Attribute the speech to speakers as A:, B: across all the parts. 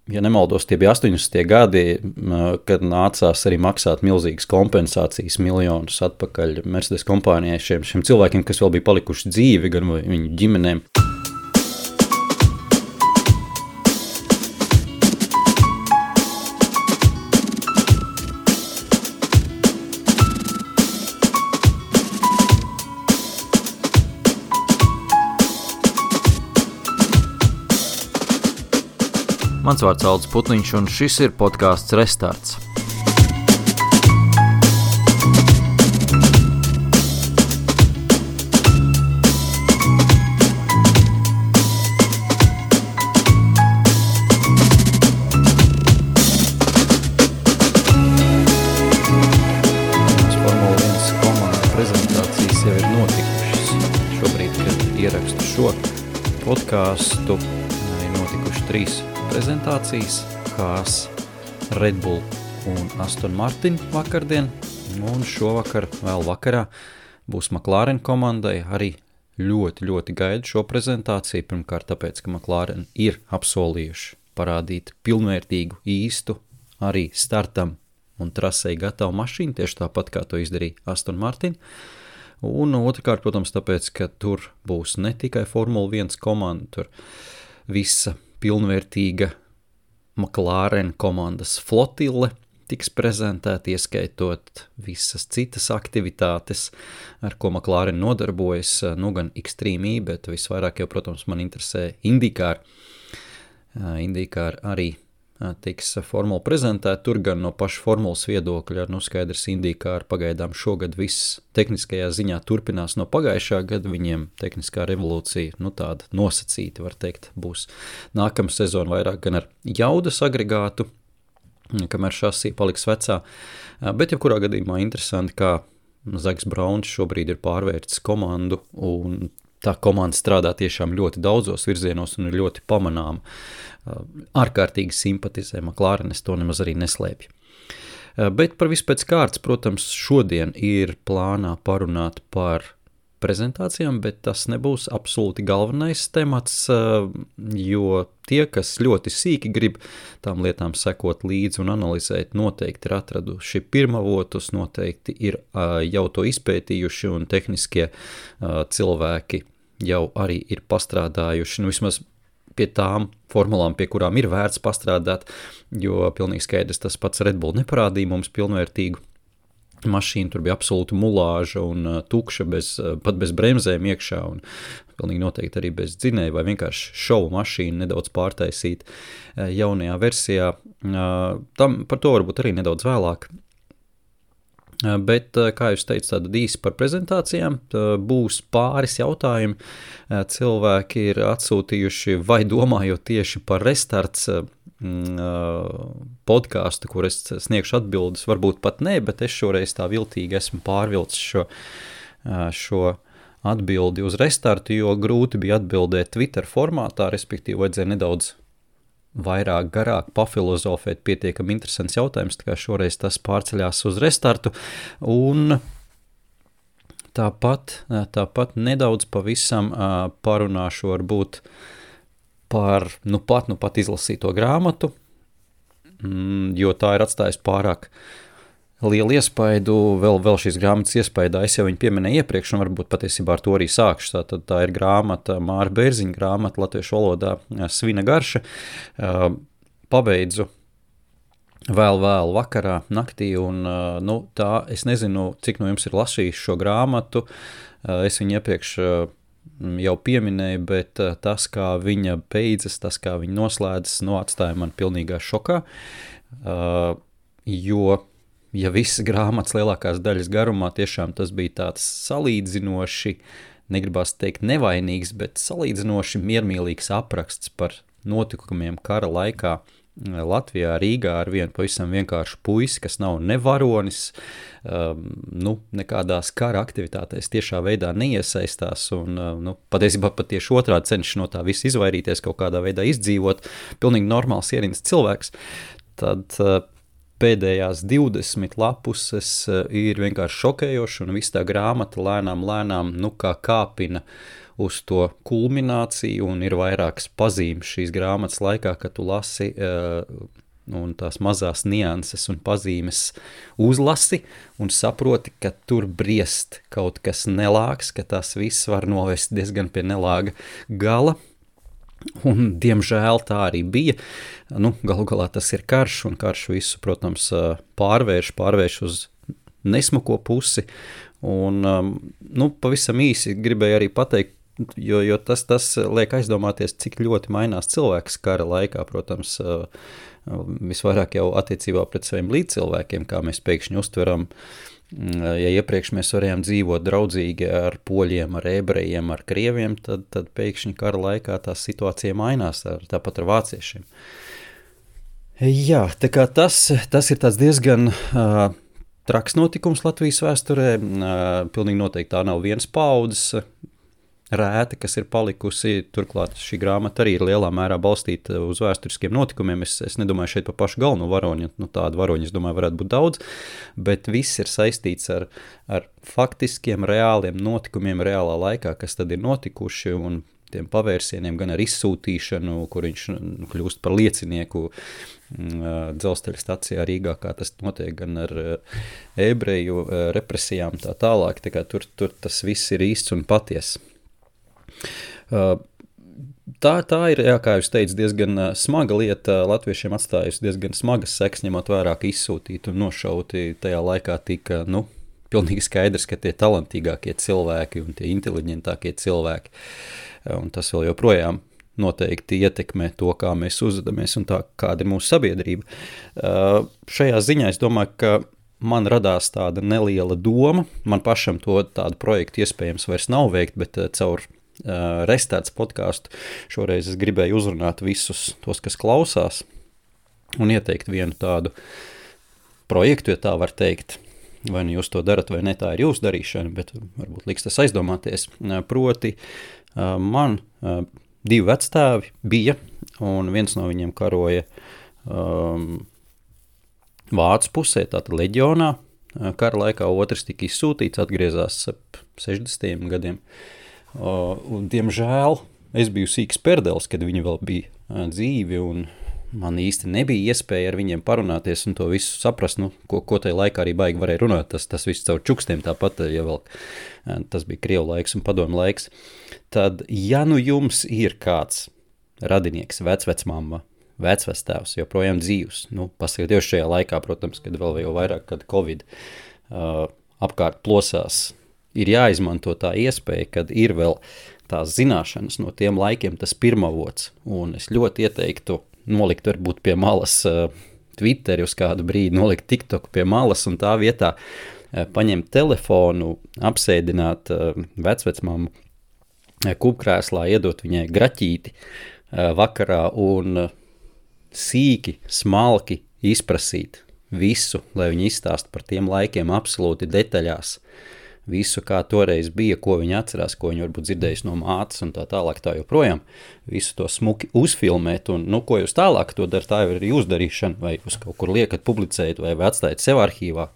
A: ja nemaldos, tie bija 80. gadi, kad nācās arī maksāt milzīgas kompensācijas, miljonus atpakaļ Mercedes kompānijai šiem cilvēkiem, kas vēl bija palikuši dzīvi, gan viņu ģimenēm. Mans vārds Aldis Putniņš, un šis ir podcasts Restarts. Formula 1 komandas prezentācijas jau ir notikušas. Šobrīd, kad ierakstu šo podcastu, ir notikuši 3 prezentācijas, Haas, Red Bull un Aston Martin vakardien, un šovakar vēl vakarā būs McLaren komandai. Arī ļoti gaidu šo prezentāciju, pirmkārt tāpēc, ka McLaren ir apsolījuši parādīt pilnvērtīgu, īstu, arī startam un trasei gatavu mašīnu, tieši tāpat kā to izdarīja Aston Martin. Un otrkārt, protams, tāpēc, ka tur būs ne tikai Formula 1 komanda, tur visa pilnvērtīga McLaren komandas flotile tiks prezentēta, ieskaitot visas citas aktivitātes, ar ko McLaren nodarbojas, gan Extreme E, bet visvairāk jau, protams, man interesē IndyCar. IndyCar arī tiks formula prezentēta, tur gan no paša formulas viedokļa, skaidrs IndyCar pagaidām šogad viss tehniskajā ziņā turpinās no pagājušā gada, viņiem tehniskā revolūcija, tāda nosacīta, var teikt, būs nākamā sezona vairāk gan ar jaudas agregātu, kamēr šasī paliks vecā, bet jebkurā gadījumā interesanti, kā Zaks Brauns šobrīd ir pārvērtis komandu, un tā komanda strādā tiešām ļoti daudzos virzienos un ir ļoti pamanāma. Ārkārtīgi simpatizē McLaren, es to nemaz arī neslēpju. Bet par visu pēc kārtas, protams, šodien ir plānā parunāt par prezentācijām, bet tas nebūs absolūti galvenais temats, jo tie, kas ļoti sīki grib tām lietām sekot līdzi un analizēt, noteikti ir atraduši pirmavotus, noteikti ir jau to izpētījuši un tehniskie cilvēki jau arī ir pastrādājuši, vismaz pie tām formulām, pie kurām ir vērts pastrādāt, jo pilnīgi skaidrs tas pats Red Bull neparādīja mums pilnvērtīgu mašīnu, tur bija absolūta mulāža un tukša, pat bez bremzēm iekšā, un pilnīgi noteikti arī bez dzinēja, vai vienkārši šovu mašīnu nedaudz pārtaisīt jaunajā versijā. Par to varbūt arī nedaudz vēlāk. Bet, kā jūs teicu, tāda īsi par prezentācijām, būs pāris jautājumi. Cilvēki ir atsūtījuši vai domājot tieši par Restarts podcastu, kur es sniegšu atbildes, varbūt pat ne, bet es šoreiz tā viltīgi esmu pārvilcis šo atbildi uz Restartu, jo grūti bija atbildēt Twitter formātā, respektīvi vajadzēja nedaudz vairāk garāk pafilozofēt, pietiekami interesants jautājums, tā kā šoreiz tas pārceļās uz Restartu, un tāpat nedaudz pavisam parunāšu varbūt par nu pat izlasīto grāmatu, jo tā ir atstājusi pārāk lielu iespaidu, vēl šīs grāmatas iespaidā, es jau viņu pieminēju iepriekš, un varbūt patiesībā ar to arī sākšu. Tā ir grāmata, Māra Bērziņa grāmata, latviešu valodā Svina garša. Pabeidzu vēl vakarā, naktī, un tā, es nezinu, cik no jums ir lasījis šo grāmatu, es viņu iepriekš jau pieminēju, bet tas, kā viņa beidzas, tas, kā viņa noslēdzas, atstāja man pilnīgā šokā, jo ja visas grāmatas lielākās daļas garumā tiešām tas bija tāds salīdzinoši, negribās teikt nevainīgs, bet salīdzinoši miermīlīgs apraksts par notikumiem kara laikā Latvijā, Rīgā ar vienu pavisam vienkāršu puisi, kas nav ne varonis, nekādās kara aktivitātēs tiešā veidā neiesaistās un patiesībā pat tieši otrādi cenšas no tā visu izvairīties, kaut kādā veidā izdzīvot, pilnīgi normāls ierīnas cilvēks, tad pēdējās 20 lapuses ir vienkārši šokējoši un viss tā grāmata lēnām, kā kāpina uz to kulmināciju, un ir vairākas pazīmes šīs grāmatas laikā, kad tu lasi un tās mazās nianses un pazīmes uzlasi un saproti, ka tur briest kaut kas nelāgs, ka tas viss var novest diezgan pie nelāga gala. Un, diemžēl, tā arī bija. Galu galā tas ir karš, un karš visu, protams, pārvērš uz nesmuko pusi. Un, pavisam īsi gribēju arī pateikt, jo tas liek aizdomāties, cik ļoti mainās cilvēks kara laikā, protams, visvairāk jau attiecībā pret saviem līdzcilvēkiem, kā mēs pēkšņi uztveram. Ja iepriekš mēs varējām dzīvot draudzīgi ar poļiem, ar ebrejiem, ar krieviem, tad pēkšņi kara laikā tā situācija mainās, tāpat ar vāciešiem. Jā, tā kā tas ir tāds diezgan traks notikums Latvijas vēsturē. Pilnīgi noteikti tā nav viens paudzes rēta, kas ir palikusi. Turklāt šī grāmata arī ir lielā mērā balstīta uz vēsturiskiem notikumiem. Es nedomāju šeit par pašu galveno varoņu, tādu varoņu, es domāju, varētu būt daudz, bet viss ir saistīts ar faktiskiem, reāliem notikumiem reālā laikā, kas tad ir notikuši, un tiem pavērsieniem gan ar izsūtīšanu, kur viņš kļūst par liecinieku dzelzceļa stacijā Rīgā, kā tas notiek, gan ar ebreju represijām tā tālāk. Tā kā tur tas viss ir īsts un patiess. Tā ir, jā, kā jūs teicu, diezgan smaga lieta. Latviešiem atstājusi diezgan smagas sekas, ņemot vērā, ka izsūtīti un nošauti tajā laikā tika, pilnīgi skaidrs, ka tie talantīgākie cilvēki un tie inteliģentākie cilvēki, un tas vēl joprojām noteikti ietekmē to, kā mēs uzvedamies un tā, kāda ir mūsu sabiedrība. Šajā ziņā es domāju, ka man radās tāda neliela doma, man pašam to tādu projektu iespējams vairs nav veikt, bet caur Restarts podcastu šoreiz es gribēju uzrunāt visus tos, kas klausās, un ieteikt vienu tādu projektu, ja tā var teikt. Vai nu jūs to darat, vai ne, tā ir jūsu darīšana, bet varbūt liks tas aizdomāties. Proti, man 2 vecstāvi bija, un viens no viņiem karoja Vācu pusē, tātad leģionā. Kara laikā otrs tika izsūtīts, atgriezās ap 60. gadiem. Un, diemžēl, es biju sīks perdelis, kad viņi vēl bija dzīvi, un man īsti nebija iespēja ar viņiem parunāties un to visu saprast, ko tajā laikā arī baigi varēja runāt. Tas viss caur čukstiem tāpat, ja vēl tas bija Krievu laiks un padomu laiks. Tad, ja jums ir kāds radinieks, vecvecmamma, vecvectēvs, joprojām dzīvs, paskatījos šajā laikā, protams, kad vēl jau vairāk, kad Covid apkārt plosās, ir jāizmanto tā iespēja, kad ir vēl tās zināšanas no tiem laikiem, tas pirmavots, un es ļoti ieteiktu nolikt varbūt pie malas Twitteri uz kādu brīdi, nolikt TikToku pie malas un tā vietā paņemt telefonu, apsēdināt vecvecmammu kupkrēslā, iedot viņai graķīti vakarā un sīki, smalki izprasīt visu, lai viņi izstāst par tiem laikiem absolūti detaļās. Visu, kā toreiz bija, ko viņi atcerās, ko viņi varbūt dzirdējuši no mātes un tā tālāk tā joprojām. Visu to smuki uzfilmēt un, ko jūs tālāk to dara, tā jau ir jūsu darīšana, vai jūs kaut kur liekat publicēt vai atstājat sev arhīvā,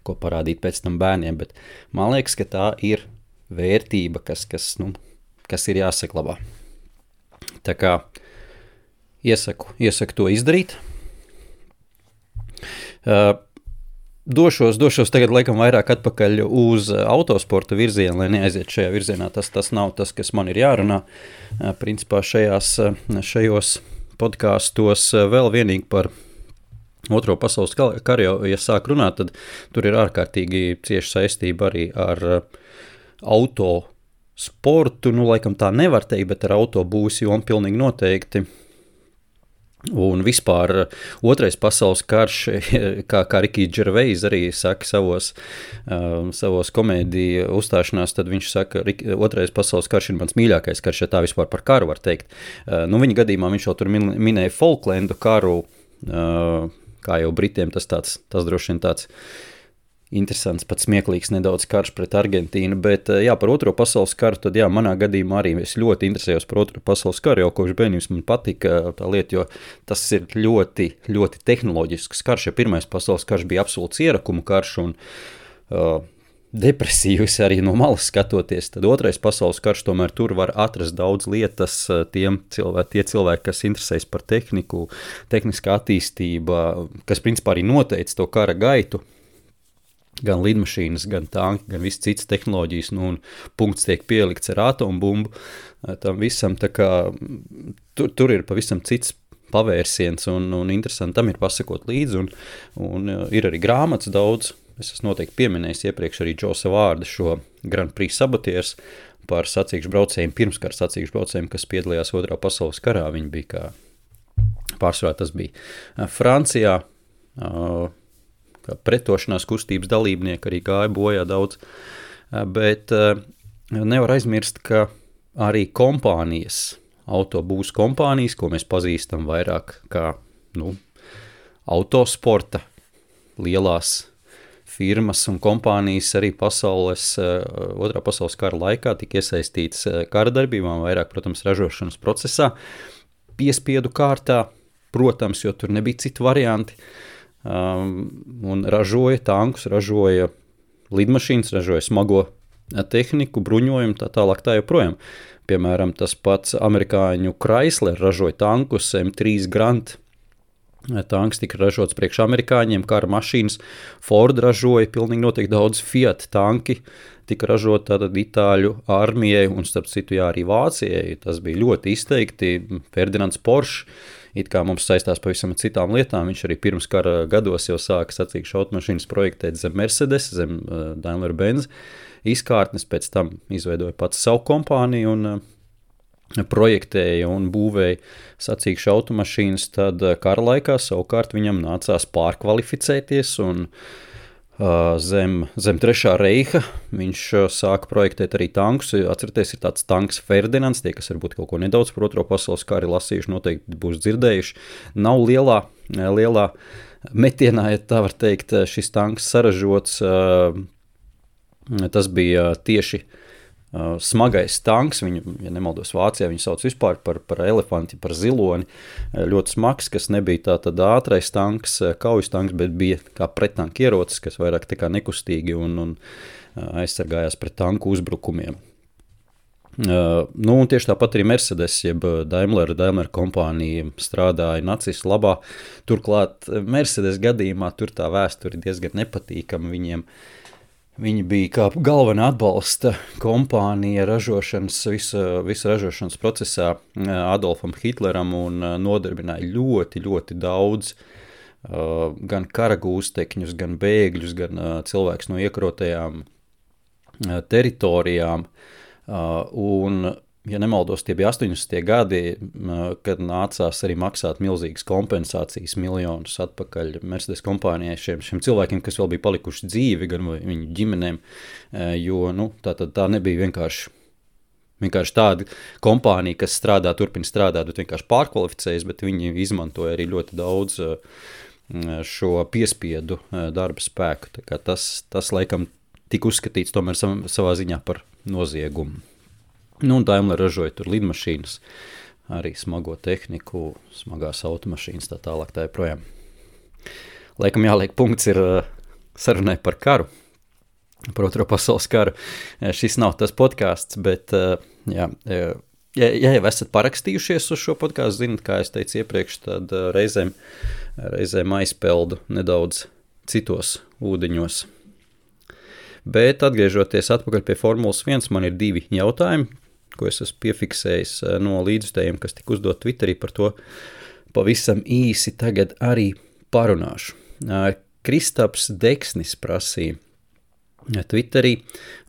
A: ko parādīt pēc tam bērniem, bet man liekas, ka tā ir vērtība, kas ir jāsaglabā. Tā kā iesaku to izdarīt. Došos tagad laikam vairāk atpakaļ uz autosporta virzienu, lai neaiziet šajā virzienā. Tas nav tas, kas man ir jārunā. Principā šajos podkāstos vēl vienīgi par Otro pasaules karu, ja sāk runāt, tad tur ir ārkārtīgi cieša saistība arī ar autosportu. Laikam tā nevar teikt, bet ar autobūs jomu pilnīgi noteikti. Un vispār Otrais pasaules karš, kā Ricky Gervais arī saka savos komēdiju uzstāšanās, tad viņš saka, Otrais pasaules karš ir mans mīļākais karš, ja tā vispār par karu var teikt. Viņa gadījumā viņš jau tur minēja Falklendu karu, kā jau Britiem tas droši vien tāds interesants, pat smieklīgs nedaudz karš pret Argentīnu, bet par Otro pasaules karu, tad manā gadījumā arī es ļoti interesējos par Otro pasaules karu, jau kopš bērnības man patika tā lieta, jo tas ir ļoti, ļoti tehnoloģisks karš, ja Pirmais pasaules karš bija absolūts ierakumu karš, un depresīvs arī no malas skatoties, tad otrais pasaules karš tomēr tur var atrast daudz lietas tie cilvēki, kas interesēs par tehniku, tehniskā attīstība, kas principā arī noteica to kara gaitu, gan lidmašīnas, gan tanki, gan viss cits tehnoloģijas, un punkts tiek pielikts ar atombumbu, tam visam, tā kā tur ir pavisam cits pavērsiens, un interesanti tam ir pasakot līdzi, un ir arī grāmatas daudz. Es esmu noteikti pieminējis iepriekš arī Džosa Vārda šo Grand Prix Sabotieris par sacīkšu braucējiem, pirmskara sacīkšu braucējiem, kas piedalījās Otrā pasaules karā. Viņi bija kā pārsvarā, tas bija Francijā, kā pretošanās kustības dalībnieki arī gāja bojā daudz, bet nevar aizmirst, ka arī kompānijas, autobūs kompānijas, ko mēs pazīstam vairāk kā autosporta lielās firmas un kompānijas arī Otrā pasaules kara laikā tika iesaistītas kara darbībām, vairāk, protams, ražošanas procesā, piespiedu kārtā, protams, jo tur nebija citu varianti, un ražoja tankus, ražoja lidmašīnas, ražoja smago tehniku, bruņojumu, tā tālāk tā joprojām. Piemēram, tas pats amerikāņu Chrysler ražoja tankus, M3 Grand tanks tika ražots priekš amerikāņiem, kara mašīnas, Ford ražoja, pilnīgi noteikti daudz Fiat tanki tika ražot tātad Itāļu armijai, un starp citu arī Vācijai, tas bija ļoti izteikti, Ferdinands Porsche, it kā mums saistās pavisam citām lietām, viņš arī pirms kara gados jau sāka sacīkšu automašīnas projektēt zem Mercedes, zem Daimler-Benz izkārtnes, pēc tam izveidoja pats savu kompāniju un projektēja un būvēja sacīkšu automašīnas, tad kara laikā savukārt viņam nācās pārkvalificēties un zem Trešā reiha viņš sāka projektēt arī tankus. Atcerieties, ir tāds tanks Ferdinands, tie, kas varbūt kaut ko nedaudz par Otro pasaules kari lasījuši, noteikti būs dzirdējuši. Nav lielā metienā, ja tā var teikt, šis tanks saražots. Tas bija tieši smagais tanks, viņu, ja nemaldos Vācijā, viņu sauc vispār par elefanti, par ziloni, ļoti smags, kas nebija tātad ātrais tanks, kaujas tanks, bet bija kā prettanka ierocis, kas vairāk tā kā nekustīgi un aizsargājās pret tanku uzbrukumiem. Un tieši tāpat arī Mercedes, jeb Daimler kompānija strādāja nacistu labā. Turklāt Mercedes gadījumā tur tā vēsture diezgan nepatīkama viņiem. Viņi bija kā galvenā atbalsta kompānija ražošanas, visa ražošanas procesā Adolfam Hitleram un nodarbināja ļoti, ļoti daudz gan karagūstekņus, gan bēgļus, gan cilvēkus no iekarotajām teritorijām. Un, ja nemaldos, tie bija 80. gadi, kad nācās arī maksāt milzīgas kompensācijas miljonus atpakaļ Mercedes kompānijai šiem cilvēkiem, kas vēl bija palikuši dzīvi, gan viņu ģimenēm, jo tā nebija vienkārši tāda kompānija, kas turpina strādāt, bet vienkārši pārkvalificējas, bet viņi izmantoja arī ļoti daudz šo piespiedu darba spēku. Tā kā tas laikam tika uzskatīts tomēr savā ziņā par noziegumu. Un Daimler ražoja tur lidmašīnas, arī smago tehniku, smagās automašīnas, tā tālāk tā joprojām. Laikam jāliek punkts ir sarunai par karu, par Otro pasaules karu. Šis nav tas podcasts, bet ja jau esat parakstījušies uz šo podcastu, zinat, kā es teicu iepriekš, tad reizēm aizpeldu nedaudz citos ūdeņos. Bet atgriežoties atpakaļ pie Formulas 1, man ir 2 jautājumi, ko es esmu piefiksējis no līdzjutējiem, kas tika uzdot Twitterī, par to pavisam īsi tagad arī parunāšu. Kristaps Deksnis prasīja Twitterī,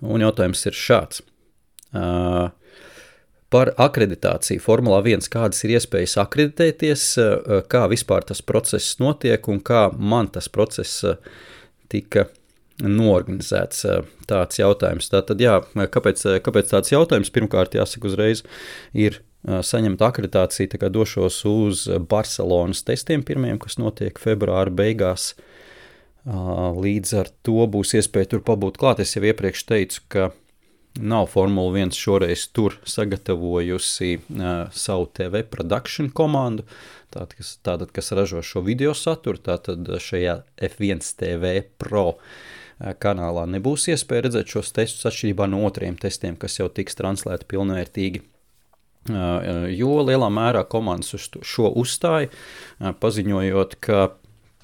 A: un jautājums ir šāds. Par akreditāciju Formulā 1, kādas ir iespējas akreditēties, kā vispār tas process notiek un kā man tas process tika norganizēts, tāds jautājums. Tātad, kāpēc tāds jautājums? Pirmkārt, jāsaka uzreiz, ir saņemt akreditāciju, tā kā došos uz Barcelonas testiem pirmajiem, kas notiek februāra beigās. Līdz ar to būs iespēja tur pabūt klāt. Es jau iepriekš teicu, ka nav Formula 1 šoreiz tur sagatavojusi savu TV production komandu, tātad, kas ražo šo video saturu, tātad šajā F1 TV Pro kanālā nebūs iespēja redzēt šos testus atšķirībā no otriem testiem, kas jau tiks translēti pilnvērtīgi. Jo lielā mērā komandas uz šo uzstāja, paziņojot, ka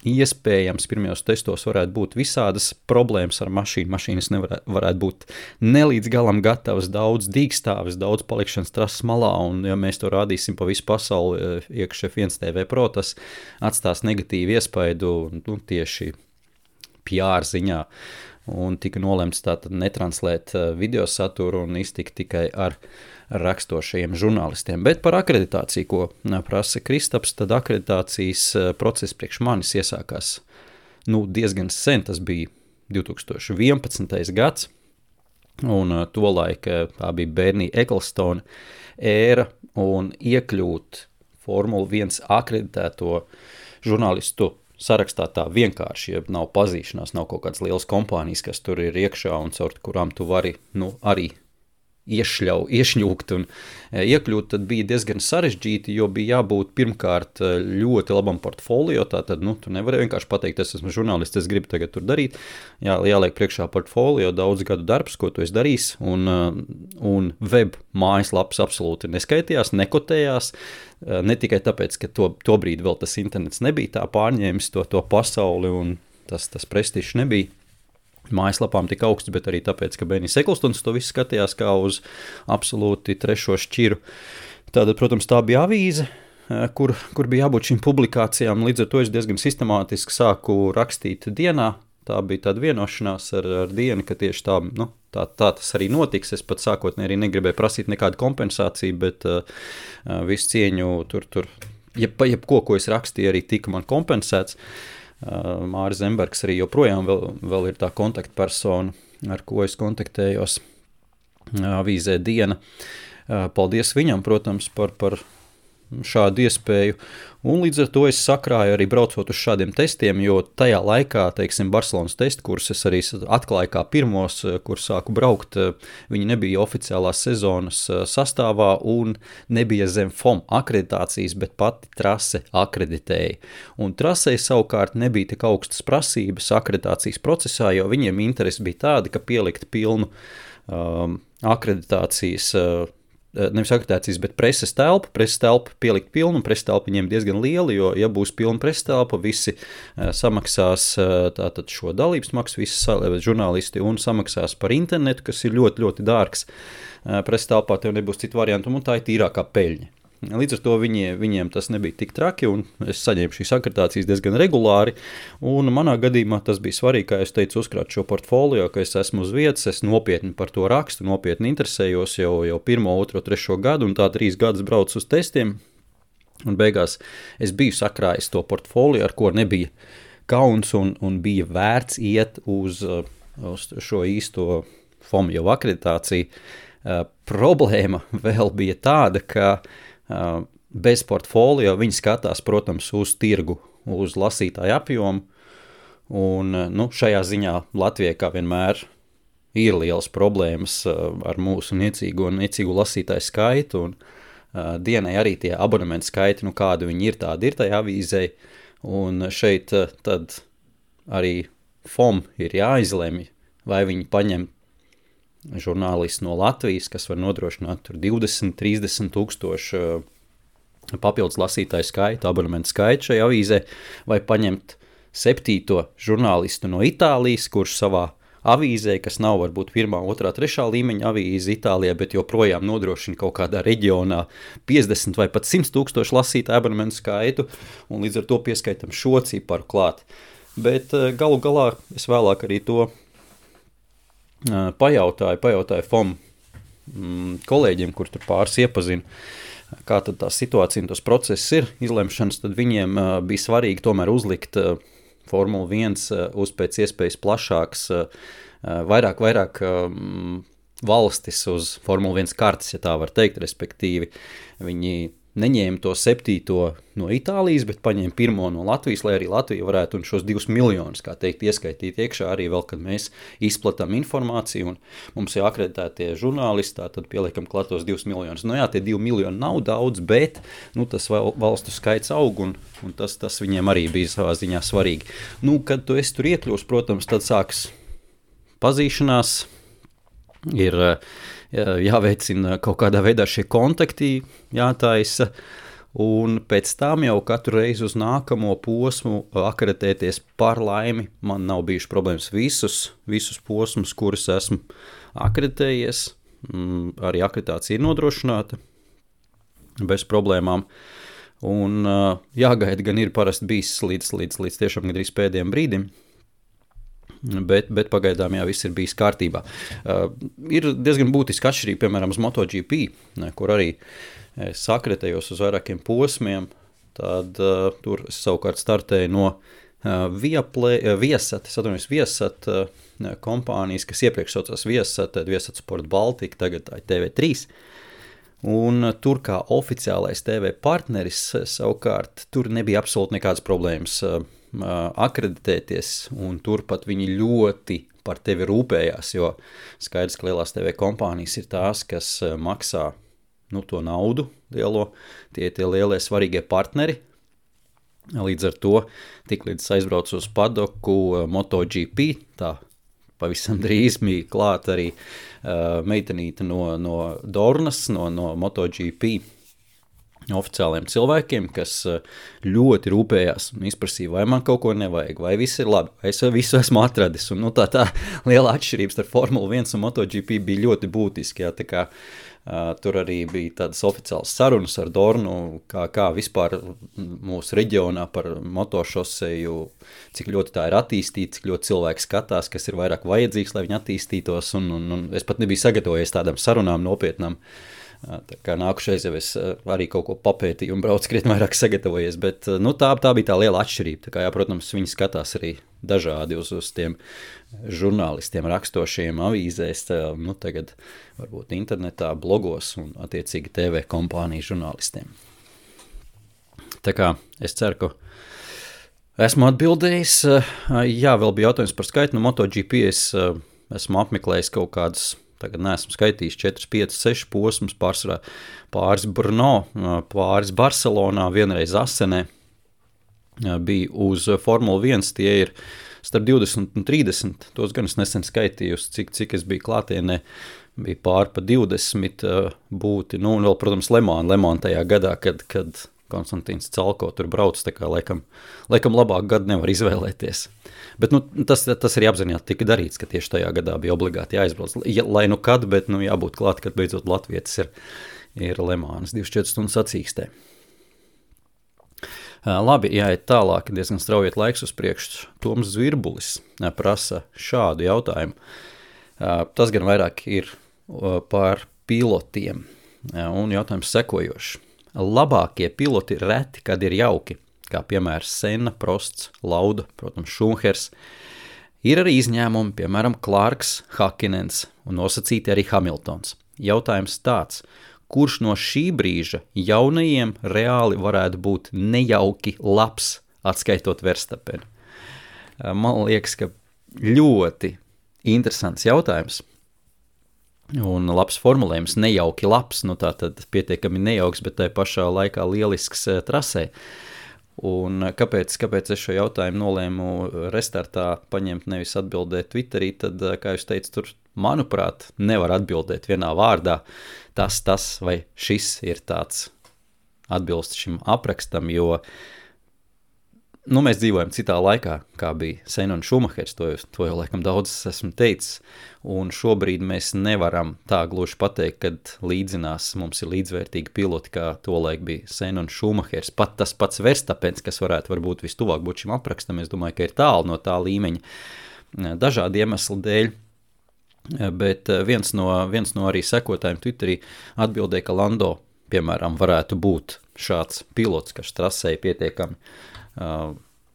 A: iespējams pirmajos testos varētu būt visādas problēmas ar mašīnu. Mašīnas varētu būt nelīdz galam gatavas, daudz dīkstāvis, daudz palikšanas trases malā, un ja mēs to rādīsim pa visu pasauli iekš F1 TV Pro, tas atstās negatīvu iespaidu tieši PR ziņā. Un tika nolemts tātad netranslēt video saturu un iztikt tikai ar rakstošajiem žurnālistiem. Bet par akreditāciju, ko prasa Kristaps, tad akreditācijas process priekš manis iesākās diezgan sen, tas bija 2011. gads, un tolaik tā bija Bernie Ecclestone ēra, un iekļūt Formula 1 akreditēto žurnālistu sarakstā tā vienkārši, ja nav pazīšanās, nav kaut kādas lielas kompānijas, kas tur ir iekšā un caur kurām tu vari arī iešņūkt un iekļūt, tad bija diezgan sarežģīti, jo bija jābūt pirmkārt ļoti labam portfolio, tātad, tu nevari vienkārši pateikt, es esmu žurnālists, es gribu tagad tur darīt, jāliek priekšā portfolio, daudz gadu darbs, ko tu esi darījis, un web mājaslapas absolūti neskaitījās, nekotējās, ne tikai tāpēc, ka to brīdi vēl tas internets nebija tā pārņēmis to pasauli, un tas prestižs nebija mājaslapām tik augsts, bet arī tāpēc, ka Bernies Ecclestones to visu skatījās kā uz absolūti trešo šķiru. Tātad, protams, tā bija avīze, kur bija jābūt šīm publikācijām, līdz ar to es diezgan sistemātiski sāku rakstīt dienā. Tā bija tāda vienošanās ar dienu, ka tieši tā tas arī notiks. Es pat sākotnēji arī negribēju prasīt nekādu kompensāciju, bet visu cieņu tur jebko, ko es rakstīju, arī tika man kompensēts. Māris Zembergs arī joprojām vēl ir tā kontaktpersona, ar ko es kontaktējos avīzē Diena. Paldies viņam, protams, par šādu iespēju. Un līdz ar to es sakrāju arī braucot uz šādiem testiem, jo tajā laikā, teiksim, Barcelonas testu kursus es arī atklāju kā pirmos, kur sāku braukt. Viņi nebija oficiālās sezonas sastāvā un nebija zem FOM akreditācijas, bet pati trase akreditēja. Un trasei savukārt nebija tik augstas prasības akreditācijas procesā, jo viņiem interesi bija tāda, ka pielikt pilnu akreditācijas nevis akreditācijas, bet preses telpu pielikt pilnu, un preses telpa viņiem diezgan liela, jo, ja būs pilna preses telpa, visi samaksās tātad šo dalības maksu, visi žurnālisti, un samaksās par internetu, kas ir ļoti, ļoti dārgs. Preses telpā tev nebūs citu variantu, un tā ir tīrākā peļņa. Līdz ar to viņiem tas nebija tik traki, un es saņēmu šīs akreditācijas diezgan regulāri, un manā gadījumā tas bija svarīgi, kā es teicu, uzkrāt šo portfolio, ka es esmu uz vietas, es nopietni par to rakstu, nopietni interesējos jau 1, 2, 3 gadu, un tā 3 gadus braucu uz testiem, un beigās es biju sakrājis to portfolio, ar ko nebija kauns, un bija vērts iet uz šo īsto FOM jau akreditāciju. Problēma vēl bija tāda, ka bez portfolio viņi skatās, protams, uz tirgu, uz lasītāju apjomu, un šajā ziņā Latvijai kā vienmēr ir lielas problēmas ar mūsu niecīgu lasītāju skaitu, un Dienai arī tie abonementu skaiti, kādi viņi ir, tādi ir tajā avīzē, un šeit tad arī FOM ir jāizlemj, vai viņi paņem žurnālisti no Latvijas, kas var nodrošināt tur 20-30 tūkstošu papildus lasītāju skaitu, abonementu skaitu šajā avīzē, vai paņemt 7. žurnālistu no Itālijas, kurš savā avīzē, kas nav varbūt 1., 2., 3. līmeņa avīze Itālijā, bet joprojām nodrošina kaut kādā reģionā 50 vai pat 100 tūkstošu lasītāju abonementu skaitu, un līdz ar to pieskaitam šo ciparu klāt. Bet galu galā es vēlāk arī to pajautāju FOM kolēģiem, kur tur pāris iepazinu, kā tad tā situācija un tas process ir izlemšanas, tad viņiem bija svarīgi tomēr uzlikt Formula 1 uz pēc iespējas plašāks, vairāk valstis uz Formula 1 kartes, ja tā var teikt, respektīvi viņi neņēma to 7. no Itālijas, bet paņēma 1. no Latvijas, lai arī Latvija varētu un šos 2 miljonus, kā teikt, ieskaitīt iekšā arī vēl, kad mēs izplatām informāciju un mums ir akreditētie žurnālisti, tad pieliekam klatos 2 miljonus. Jā, tie 2 miljoni nav daudz, bet tas valstu skaits aug un tas viņiem arī bija savā ziņā svarīgi. Kad tu esi tur iekļūst, protams, tad sāks pazīšanās, ir jāveicina kaut kādā veidā šie kontakti, jātaisa, un pēc tam jau katru reizi uz nākamo posmu akreditēties par laimi. Man nav bijuši problēmas visus posmus, kurus esmu akreditējies. Arī akreditācija ir nodrošināta bez problēmām. Un jāgaida gan ir parasti bijis līdz tiešām gandrīz pēdējiem brīdim. Bet pagaidām viss ir bijis kārtībā. Ir diezgan būtiski atšķirība, piemēram, uz MotoGP, kur arī es akreditējos uz vairākiem posmiem, tad tur es savukārt startēju no Viasat kompānijas, kas iepriekš saucās Viasat Sport Baltica, tagad tā ir TV3. Un tur kā oficiālais TV partneris savukārt tur nebija absolūti nekādas problēmas akreditēties, un turpat viņi ļoti par tevi rūpējās, jo skaidrs, ka lielās TV kompānijas ir tās, kas maksā to naudu lielo, tie lielie svarīgie partneri. Līdz ar to, tiklīdz aizbraucu uz padoku MotoGP, tā pavisam drīz bija klāt arī meitenīte no Dornas, no MotoGP oficiāliem cilvēkiem, kas ļoti rūpējās un izprasīja, vai man kaut ko nevajag, vai viss ir labi, vai es visu esmu atradis. Un, tā liela atšķirības starp Formula 1 un MotoGP bija ļoti būtiski. Tā kā tur arī bija tādas oficiālas sarunas ar Dornu, kā vispār mūsu reģionā par motošoseju, cik ļoti tā ir attīstīta, cik ļoti cilvēki skatās, kas ir vairāk vajadzīgs, lai viņi attīstītos, un es pat nebiju sagatavojies tādām sarunām nopietnām. Tā kā nākušais jau es arī kaut ko papētīju un braucu krietni vairāk sagatavojies, bet tā bija tā liela atšķirība. Tā kā, protams, viņi skatās arī dažādi uz tiem žurnālistiem rakstošiem avīzēs, tagad varbūt internetā, blogos un attiecīgi TV kompāniju žurnālistiem. Tā kā es ceru, ka esmu atbildējis. Jā, vēl bija jautājums par skaitu. No MotoGP es esmu apmeklējis kaut kādus, tagad neesmu skaitījis 4, 5, 6 posmus, pāris Brno, pāris Barcelonā, vienreiz Asenē. Bija uz Formula 1, tie ir starp 20 un 30, tos gan es nesen skaitījus, cik es biju klātienē, bija pār pa 20 būti, un vēl, protams, Le Mans tajā gadā, kad Konstantīns Calko tur brauc, tā kā laikam labāk gadu nevar izvēlēties. Bet tas arī apzināti tika darīts, ka tieši tajā gadā bija obligāti jāizbrauc. Lai kad, bet jābūt klāt, kad beidzot latvietis ir Le Mans 24 stundu sacīkstē. Labi, jāiet tālāk, diezgan straujiet laiks uz priekšu. Toms Zvirbulis prasa šādu jautājumu. Tas gan vairāk ir par pilotiem, un jautājums sekojošs. Labākie piloti reti, kad ir jauki, kā piemēram Senna, Prosts, Lauda, protams, Šumahers. Ir arī izņēmumi, piemēram, Clarks, Hakinens un nosacīti arī Hamiltons. Jautājums tāds, kurš no šī brīža jaunajiem reāli varētu būt nejauki labs, atskaitot Verstapenu? Man liekas, ka ļoti interesants jautājums. Un labs formulējums, nejauki labs, tātad pietiekami nejauks, bet tai pašā laikā lielisks trasē. Un kāpēc es šo jautājumu nolēmu restartā paņemt, nevis atbildēt Twitterī, tad, kā jūs teicu, tur, manuprāt, nevar atbildēt vienā vārdā. Tas vai šis ir tāds atbilst šim aprakstam, jo mēs dzīvojam citā laikā, kā bija Senna un Šumahers, to jau laikam daudz esmu teicis, un šobrīd mēs nevaram tā gluži pateikt, kad līdzinās mums ir līdzvērtīgi piloti, kā tolaik bija Senna un Šumahers. Pat tas pats Verstapens, kas varbūt vistuvāk būt šim aprakstam, es domāju, ka ir tālu no tā līmeņa dažādi iemesli dēļ, bet viens no arī sekotājiem Twitterī atbildēja, ka Lando, piemēram, varētu būt šāds pilots, kas trasēja pietiekami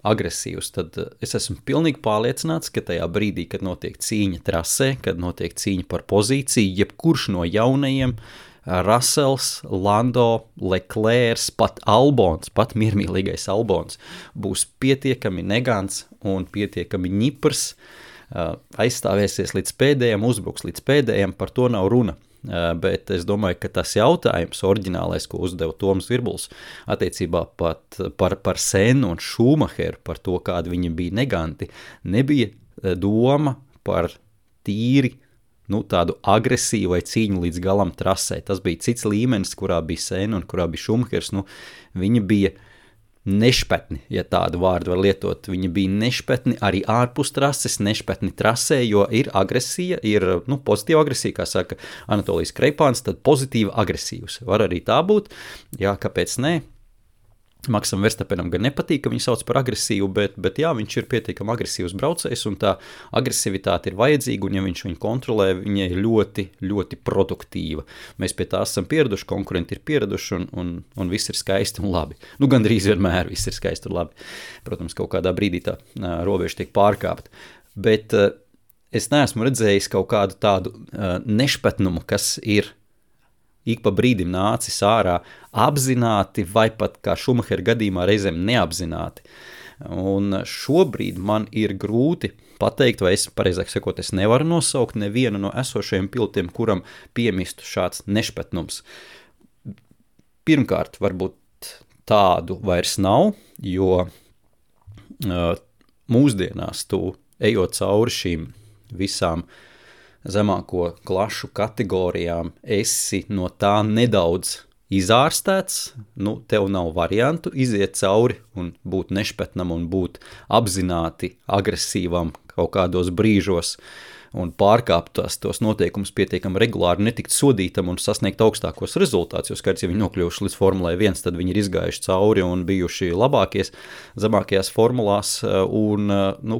A: agresīvs, tad es esmu pilnīgi pārliecināts, ka tajā brīdī, kad notiek cīņa trasē, kad notiek cīņa par pozīciju, jebkurš no jaunajiem, Russells, Lando, Leclerc, pat Albons, pat miermīlīgais Albons, būs pietiekami negants un pietiekami ņiprs, aizstāvēsies līdz pēdējiem, uzbruks līdz pēdējiem, par to nav runa. Bet es domāju, ka tas jautājums oriģinālais, ko uzdeva Toms Zvirbulis attiecībā pat par Sennu un Šumaheru, par to, kādi viņi bija neganti, nebija doma par tīri tādu agresīvu vai cīņu līdz galam trasē. Tas bija cits līmenis, kurā bija Senna un kurā bija Šumahers. Viņi bija nešpetni, ja tādu vārdu var lietot. Viņi bija nešpetni arī ārpus trases, nešpetni trasē, jo ir agresija, ir pozitīva agresija, kā saka Anatolijas Kreipāns, tad pozitīva agresīvs. Var arī tā būt, jā, kāpēc ne? Maksam Verstapenam gan nepatīk, ka viņu sauc par agresīvu, bet jā, viņš ir pietiekami agresīvs braucējs, un tā agresivitāte ir vajadzīga, un ja viņš viņu kontrolē, viņa ir ļoti, ļoti produktīva. Mēs pie tā esam pieraduši, konkurenti ir pieraduši, un viss ir skaisti un labi. Gandrīz vienmēr viss ir skaisti un labi. Protams, kaut kādā brīdī tā robeža tiek pārkāpta. Bet es neesmu redzējis kaut kādu tādu nešpetnumu, kas ir ik pa brīdim nācis ārā apzināti vai pat kā Šumahera gadījumā reizēm neapzināti. Un šobrīd man ir grūti pateikt, vai es, pareizāk sakot, es nevaru nosaukt nevienu no esošajiem pilotiem, kuram piemistu šāds nešpetnums. Pirmkārt, varbūt tādu vairs nav, jo mūsdienās tu ejot cauri šīm visām zemāko klašu kategorijām, esi no tā nedaudz izārstēts, tev nav variantu iziet cauri un būt nešpetnam un būt apzināti agresīvam kaut kādos brīžos un pārkāpt tos noteikumus pietiekami regulāri, netikt sodītam un sasniegt augstākos rezultātus, jo skaidrs, ja viņi nokļuvuši līdz Formulai 1, tad viņi ir izgājuši cauri un bijuši zemākajās formulās un,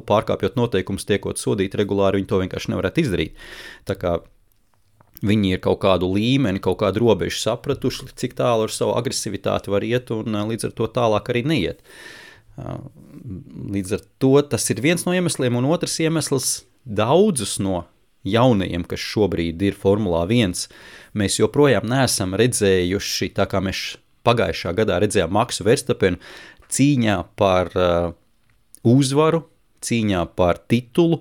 A: pārkāpjot noteikumus, tiekot sodīti regulāri, viņi to vienkārši nevarētu izdarīt. Tā kā viņi ir kaut kādu līmeni, kaut kādu robežu sapratuši, cik tālu ar savu agresivitāti var iet un līdz ar to tālāk arī neiet. Līdz ar to tas ir viens no iemesliem, un otrs iemesls daudzus no jaunajiem, kas šobrīd ir Formulā 1, mēs joprojām neesam redzējuši, tā kā mēs pagājušā gadā redzējām Maksu Verstapenu cīņā par uzvaru, cīņā par titulu,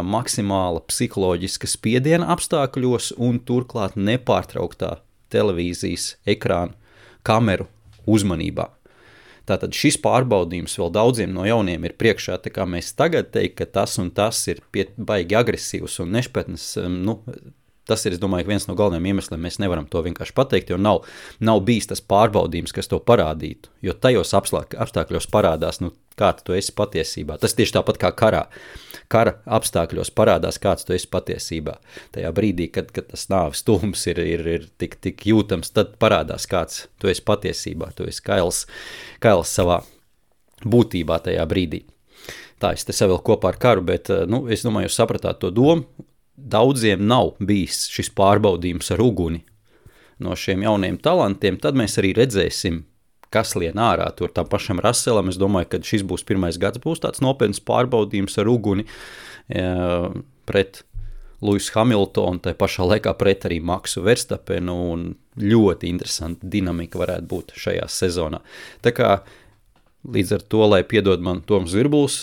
A: maksimāla psiholoģiska spiediena apstākļos un turklāt nepārtrauktā televīzijas ekrāna kameru uzmanībā. Tātad šis pārbaudījums vēl daudziem no jauniem ir priekšā, tā kā mēs tagad teikt, ka tas un tas ir baigi agresīvs un nešpetnes, tas ir, es domāju, viens no galvenajiem iemesliem, mēs nevaram to vienkārši pateikt, jo nav bijis tas pārbaudījums, kas to parādītu, jo tajos apstākļos parādās, kāds tu esi patiesībā. Tas tieši tāpat kā karā. Kara apstākļos parādās, kāds tu esi patiesībā. Tajā brīdī, kad tas nāves tūms ir tik jūtams, tad parādās, kāds tu esi patiesībā. Tu esi kails savā būtībā tajā brīdī. Tā es te savilku kopā ar karu, bet es domāju, jūs sapratāt to domu. Daudziem nav bijis šis pārbaudījums ar uguni no šiem jauniem talantiem, tad mēs arī redzēsim, kas lien ārā tur tam pašam Russellam. Es domāju, ka šis būs pirmais gads, būs tāds nopietns pārbaudījums ar uguni pret Lewisu Hamiltonu, tai pašā laikā pret arī Maksu Verstapenu, un ļoti interesanta dinamika varētu būt šajā sezonā. Tā kā līdz ar to, lai piedod man Toms Virbuls,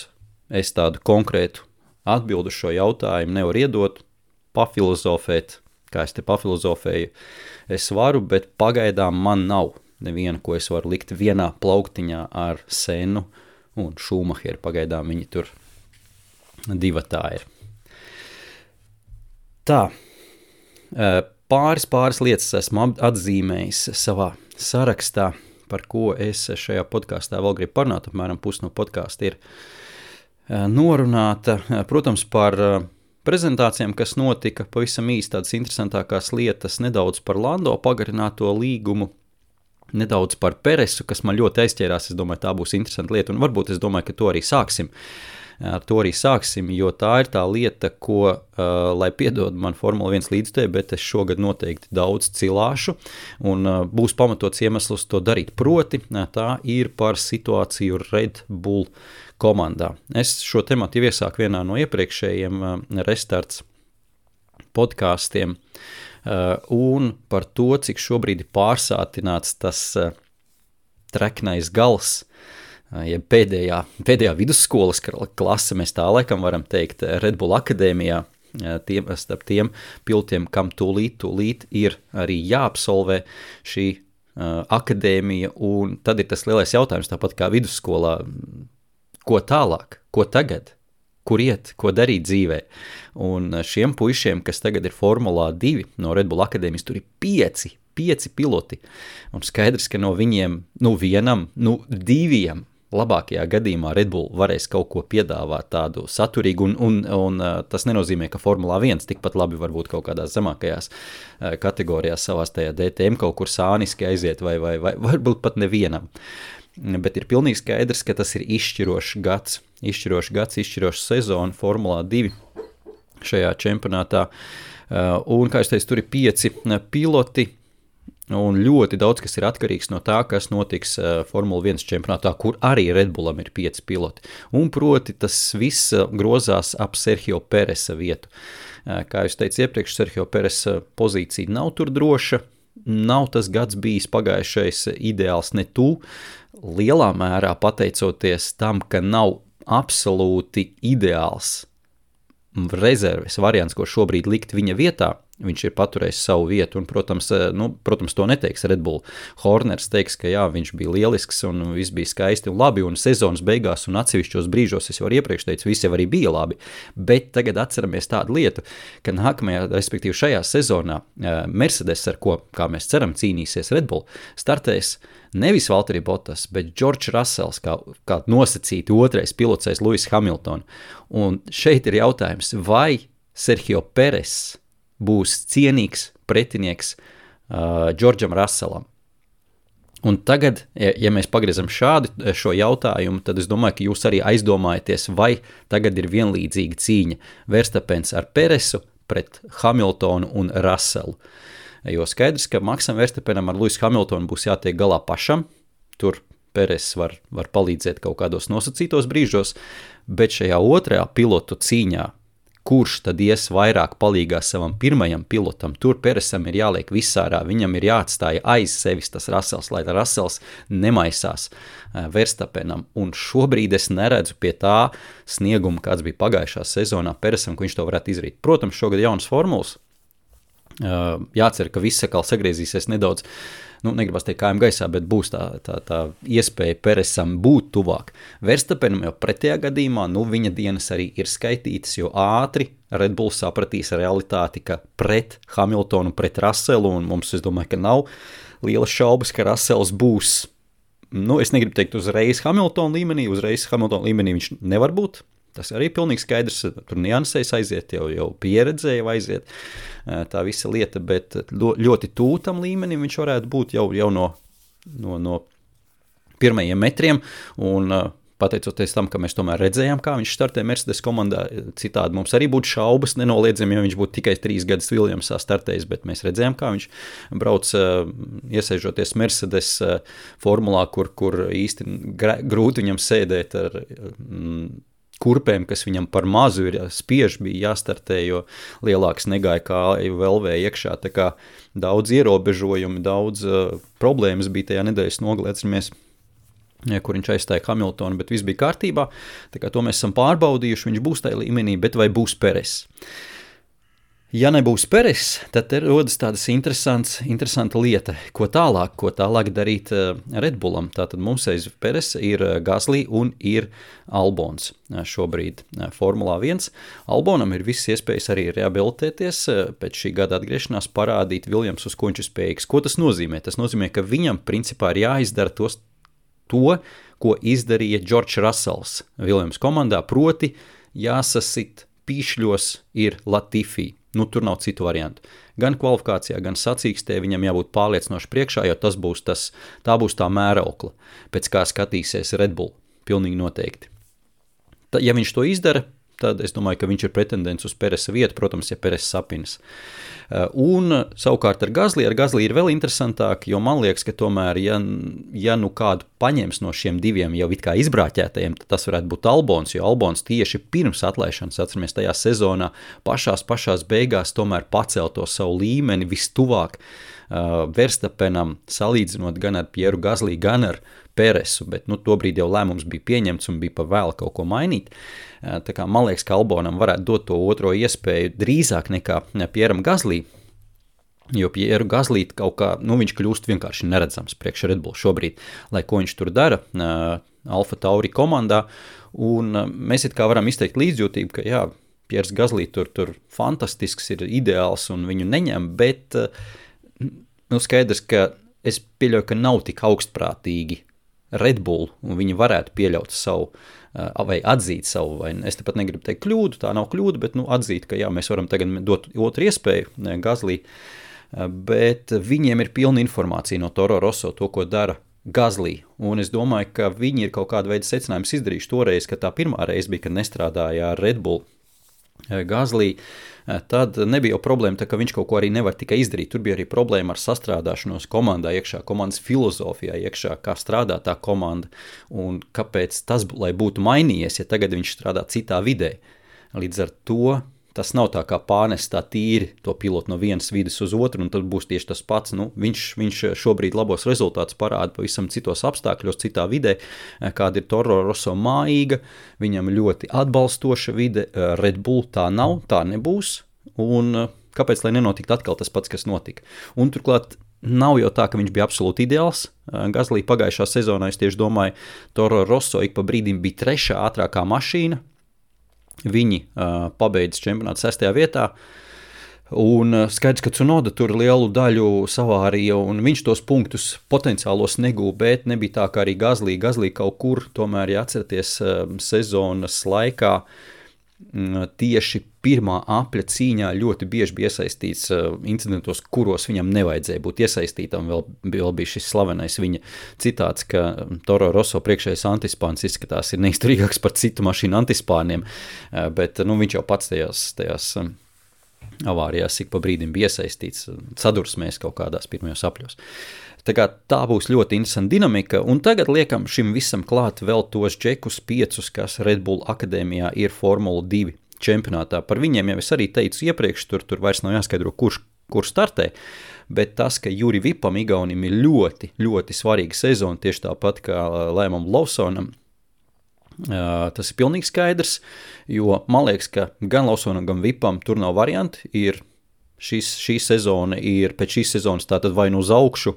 A: es tādu konkrētu atbildu šo jautājumu nevaru iedot, pafilozofēt, kā es te pafilozofēju, es varu, bet pagaidām man nav neviena, ko es varu likt vienā plauktiņā ar Sennu un Šumacheru. Pagaidām viņi tur divatā ir. Tā, pāris lietas esmu atzīmējis savā sarakstā, par ko es šajā podkāstā vēl gribu parunāt, apmēram pusi no podkāsta ir norunāta, protams, par prezentācijām, kas notika, pavisam īsti tādas interesantākās lietas, nedaudz par Lando pagarināto līgumu, nedaudz par Peresu, kas man ļoti aizķērās, es domāju, tā būs interesanta lieta, un varbūt es domāju, ka to arī sāksim. Ar to arī sāksim, jo tā ir tā lieta, ko, lai piedod man Formula 1 līdzstēju, bet es šogad noteikti daudz cilāšu, un būs pamatots iemesls to darīt. Proti, tā ir par situāciju Red Bull komandā. Es šo tematu jau iesāku vienā no iepriekšējiem restarts podkāstiem, un par to, cik šobrīd ir pārsātināts tas treknais gals, ja pēdējā vidusskolas klase, mēs tā laikam varam teikt, Red Bull akadēmijā, starp tiem pilotiem, kam tūlīt ir arī jāabsolvē šī akadēmija, un tad ir tas lielais jautājums, tāpat kā vidusskolā, ko tālāk, ko tagad, kur iet, ko darīt dzīvē. Un šiem puišiem, kas tagad ir Formulā 2 no Red Bull akadēmijas, tur ir 5 piloti. Un skaidrs, ka no viņiem, vienam, 2 labākajā gadījumā Red Bull varēs kaut ko piedāvāt tādu saturīgu, un tas nenozīmē, ka Formulā 1 tikpat labi varbūt kaut kādās zemākajās kategorijās savās tajā DTM kaut kur sāniski aiziet, vai varbūt pat nevienam. Bet ir pilnīgi skaidrs, ka tas ir izšķirošs gads, izšķiroša sezona Formulā 2 šajā čempionātā. Un, kā es teicu, tur ir 5 piloti, un ļoti daudz, kas ir atkarīgs no tā, kas notiks Formula 1 čempionātā, kur arī Red Bullam ir 5 piloti. Un proti tas viss grozās ap Sergio Peresa vietu. Kā jūs teicu iepriekš, Sergio Peresa pozīcija nav tur droša, nav tas gads bijis pagājušais ideāls ne tu, lielā mērā pateicoties tam, ka nav absolūti ideāls rezerves variants, ko šobrīd likt viņa vietā. Viņš ir paturējis savu vietu, un, protams, to neteiks Red Bull. Horners teiks, ka jā, viņš bija lielisks, un viss bija skaisti un labi, un sezonas beigās un atsevišķos brīžos, es jau iepriekš teicu, viss jau arī bija labi, bet tagad atceramies tādu lietu, ka nākamajā, respektīvi šajā sezonā, Mercedes, ar ko, kā mēs ceram, cīnīsies Red Bull, startēs nevis Valtteri Bottas, bet George Russells, kā nosacīti otrais pilots aiz Lewis Hamilton. Un šeit ir jautājums, vai Sergio Perez būs cienīgs pretinieks Džordžam Russellam. Un tagad, ja mēs pagriezam šo jautājumu, tad es domāju, ka jūs arī aizdomājaties, vai tagad ir vienlīdzīga cīņa Verstappens ar Peresu pret Hamiltonu un Russellu. Jo skaidrs, ka Maksam Verstappenam ar Lewis Hamiltonu būs jātiek galā pašam, tur Peres var palīdzēt kaut kādos nosacītos brīžos, bet šajā otrajā pilotu cīņā, kurš tad ies vairāk palīgā savam pirmajam pilotam, tur Peresam ir jāliek visārā, viņam ir jāatstāja aiz sevis tas Russells, lai Russells nemaisās Verstappenam, un šobrīd es neredzu pie tā snieguma, kāds bija pagājušā sezonā Peresam, ka viņš to varētu izdarīt. Protams, šogad jaunas formulas, jācer, ka viss atkal sagriezīsies nedaudz, negribas teikt kājām gaisā, bet būs tā iespēja Peresam būt tuvāk. Verstappenam jau pretējā gadījumā, viņa dienas arī ir skaitītas, jo ātri Red Bull sapratīs realitāti, ka pret Hamiltonu, pret Russellu, un mums, es domāju, ka nav lielas šaubas, ka Russells būs, es negribu teikt uzreiz Hamiltona līmenī viņš nevar būt. Tas arī pilnīgi skaidrs, tur niansēs aiziet, jau pieredzēja aiziet tā visa lieta, bet ļoti tūtam līmenim viņš varētu būt jau no pirmajiem metriem, un pateicoties tam, ka mēs tomēr redzējām, kā viņš startē Mercedes komandā, citādi mums arī būtu šaubas, nenoliedzami, ja viņš būtu tikai 3 gadus Williamsā startējis, bet mēs redzējām, kā viņš brauc iesēžoties Mercedes formulā, kur īsti grūti viņam sēdēt ar kurpēm, kas viņam par mazu ir spiež, bija jāstartē, jo lielāks negāja kāju velvēja iekšā, tā kā daudz ierobežojumi, daudz problēmas bija tajā nedēļas nogalē, atceramies, kur viņš aizstāja Hamiltonu, bet viss bija kārtībā, tā kā to mēs esam pārbaudījuši, viņš būs tajā līmenī, bet vai būs Peres? Ja nebūs Peres, tad rodas tādas interesanta lieta, ko tālāk darīt Red Bullam. Tātad mums aiz Peres ir Gasly un ir Albons šobrīd Formulā 1. Albonam ir visas iespējas arī rehabilitēties, pēc šī gada atgriešanās parādīt Williams, uz ko viņš ir spējīgs. Ko tas nozīmē? Tas nozīmē, ka viņam principā ir jāizdara to, ko izdarīja George Russells Williams komandā, proti jāsasit pīšļos ir Latifi. Tur nav citu variantu. Gan kvalifikācijā, gan sacīkstē viņam jābūt pārliecinoši priekšā, jo tā būs tā mēraukla, pēc kā skatīsies Red Bull, pilnīgi noteikti. Ja viņš to izdara, tad es domāju, ka viņš ir pretendents uz Peresa vietu, protams, ja Peres sapinas. Un savukārt ar Gasly ir vēl interesantāk, jo man liekas, ka tomēr, ja kādu paņems no šiem diviem jau it kā izbrāķētajiem, tad tas varētu būt Albons, jo Albons tieši pirms atlaišanas, atceramies, tajā sezonā pašās beigās tomēr pacēl to savu līmeni vistuvāk Verstappenam, salīdzinot gan ar Pieru Gasly, gan ar Peresu, bet tobrīd jau lēmums bija pieņemts un bija pa vēl kaut ko mainīt. Tā kā man liekas, ka Albonam varētu dot to otro iespēju drīzāk nekā Pieram Gasly, jo Pieru Gasly kaut kā, viņš kļūst vienkārši neredzams priekš Red Bull šobrīd, lai ko viņš tur dara. Alfa Tauri komandā, un mēs it kā varam izteikt līdzjūtību, ka jā, Piers Gasly tur fantastisks, ir ideāls un viņu neņem, bet skaidrs, ka es pieļauju, ka nav tik augstprātīgi Red Bull, un viņi varētu pieļaut savu, vai atzīt savu, vai es tepat negribu teikt kļūdu, tā nav kļūda, bet atzīt, ka jā, mēs varam tagad dot otru iespēju Gasly, bet viņiem ir pilna informācija no Toro Rosso, to, ko dara Gasly, un es domāju, ka viņi ir kaut kādu veidu secinājumus izdarījuši toreiz, ka tā pirmā reize bija, kad nestrādāja ar Red Bull Gasly, tad nebija jau problēma, tā, ka viņš kaut ko arī nevar tikai izdarīt. Tur bija arī problēma ar sastrādāšanos komandā iekšā, komandas filozofijā iekšā, kā strādā tā komanda un kāpēc tas, lai būtu mainījies, ja tagad viņš strādā citā vidē. Līdz ar to tas nav tā kā pārnest tā tīri to pilotu no vienas vides uz otru, un tad būs tieši tas pats. Viņš šobrīd labos rezultātus parāda pavisam citos apstākļos, citā vidē, kāda ir Toro Rosso mājīga, viņam ļoti atbalstoša vide, Red Bull tā nav, tā nebūs, un kāpēc, lai nenotikt atkal tas pats, kas notika. Un turklāt nav jau tā, ka viņš bija absolūti ideāls. Gasly pagājušā sezonā, es tieši domāju, Toro Rosso ik pa brīdim bija 3. ātrākā mašīna, viņi pabeidz čempionātu 6. vietā, un skaidrs, ka Tsunoda tur lielu daļu savārīja, un viņš tos punktus potenciālos negūja, bet nebija tā, kā arī Gasly kaut kur, tomēr, ja atceraties sezonas laikā, tieši pirmā apļa cīņā ļoti bieži bija iesaistīts incidentos, kuros viņam nevajadzēja būt iesaistītam. Vēl bija šis slavenais viņa citāts, ka Toro Rosso priekšējais antispāns izskatās ir neizturīgāks par citu mašīnu antispāniem, bet viņš jau pats tajās avārijās ik pa brīdim bija iesaistīts, sadursmēs kaut kādās pirmajos apļos. Tā būs ļoti interesanta dinamika, un tagad liekam šim visam klāt vēl tos džekus 5, kas Red Bull akadēmijā ir Formula 2 čempionātā. Par viņiem jau es arī teicu iepriekš, tur vairs nav jāskaidro, kurš startē, bet tas, ka Juri Vipam Igaunim ir ļoti, ļoti svarīga sezona, tieši tāpat kā Liamam Lawsonam, tas ir pilnīgi skaidrs, jo man liekas, ka gan Lawsonam, gan Vipam tur nav varianti, šī sezona ir pēc šīs sezonas tātad vai nu uz augšu,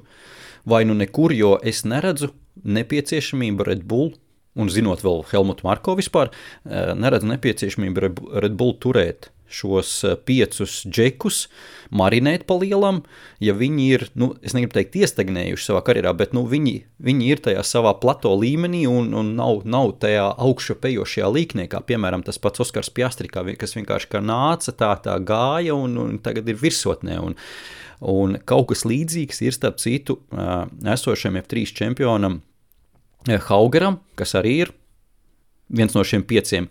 A: vai nu nekur, jo es neredzu nepieciešamību Red Bull, un zinot vēl Helmutu Marko vispār, neredzu nepieciešamību Red Bull turēt šos 5 džekus, marinēt pa lielam, ja viņi ir, es negribu teikt iestagnējuši savā karjerā, bet viņi ir tajā savā plato līmenī un nav tajā augšupejošajā līknē, kā piemēram tas pats Oskars Piastri, kas vienkārši kā nāca, tā gāja un tagad ir virsotnē. Un kaut kas līdzīgs ir starp citu esošiem F3 čempionam Haugeram, kas arī ir viens no šiem 5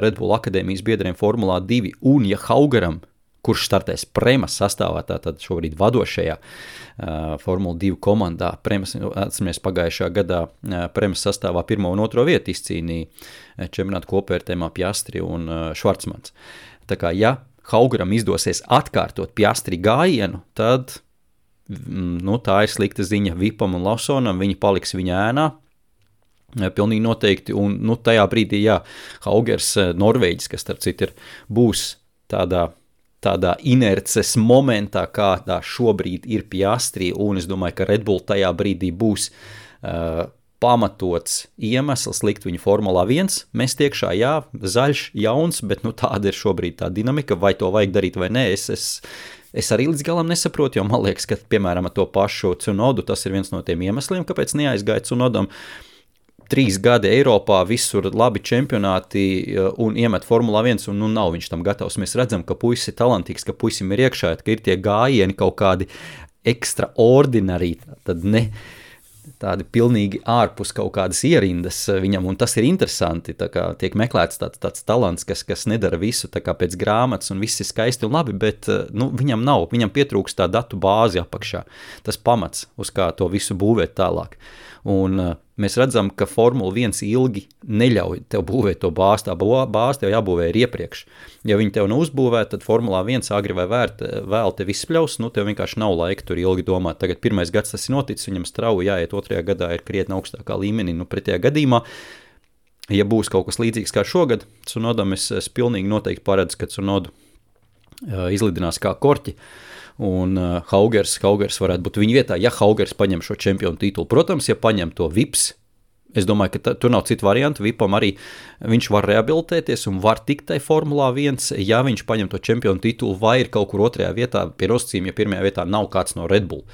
A: Red Bull akadēmijas biedriem Formulā 2, un ja Haugeram, kurš startēs Premas sastāvā, tātad šobrīd vadošajā Formula 2 komandā, Premas, atceramies pagājušā gadā Premas sastāvā 1. un 2. vietu izcīnīja čempionātu kopvērtējumā Piastri un Švarcmans. Tā kā, ja Haugeram izdosies atkārtot Piastri gājienu, tad tā ir slikta ziņa Vipam un Lawsonam, viņi paliks viņa ēnā, pilnīgi noteikti, un tajā brīdī, Haugers, Norvēģis, kas starp citu būs tādā inerces momentā, kādā šobrīd ir Piastri, un es domāju, ka Red Bull tajā brīdī būs pamatots iemesls likt viņu Formulā 1, mest iekšā, zaļš, jauns, bet tāda ir šobrīd tā dinamika, vai to vajag darīt vai nē, es arī līdz galam nesaprotu, jo man liekas, ka, piemēram, ar to pašu Tsunodu, tas ir viens no tiem iemesliem, kāpēc neaizgāja Tsunodam 3 gadi Eiropā, visur labi čempionāti un iemet Formulā 1 un nav viņš tam gatavs. Mēs redzam, ka puisis ir talantīgs, ka puisim ir iekšā, ka ir tie gājieni kaut kādi extraordinari, tad ne tādi pilnīgi ārpus kaut kādas ierindas viņam, un tas ir interesanti, tā kā tiek meklēts tāds talants, kas nedara visu tā kā pēc grāmatas, un viss ir skaisti un labi, bet viņam nav, viņam pietrūks tā datu bāzi apakšā, tas pamats, uz kā to visu būvēt tālāk. Un mēs redzam, ka Formula 1 ilgi neļauj tev būvēt to bāzi, tā bāzi tev jābūvē ir iepriekš. Ja viņi tev neuzbūvē, tad Formulā 1 agri vai vēl tev izspļaus, tev vienkārši nav laika tur ilgi domāt. Tagad 1. gads tas ir noticis, viņam strauji jāiet 2. gadā ir krietni augstākā līmenī, pretējā gadījumā. Ja būs kaut kas līdzīgs kā šogad, Tsunodam es pilnīgi noteikti paredzu, ka Tsunodu izlidinās kā korķi. Un Haugers varētu būt viņa vietā, ja Haugers paņem šo čempionu titulu. Protams, ja paņem to Vips, es domāju, ka tur nav citu variantu. Vipam arī viņš var rehabilitēties un var tikt tai Formulā 1, ja viņš paņem to čempionu titulu vai ir kaut kur otrajā vietā pie nosacījuma, ja pirmajā vietā nav kāds no Red Bull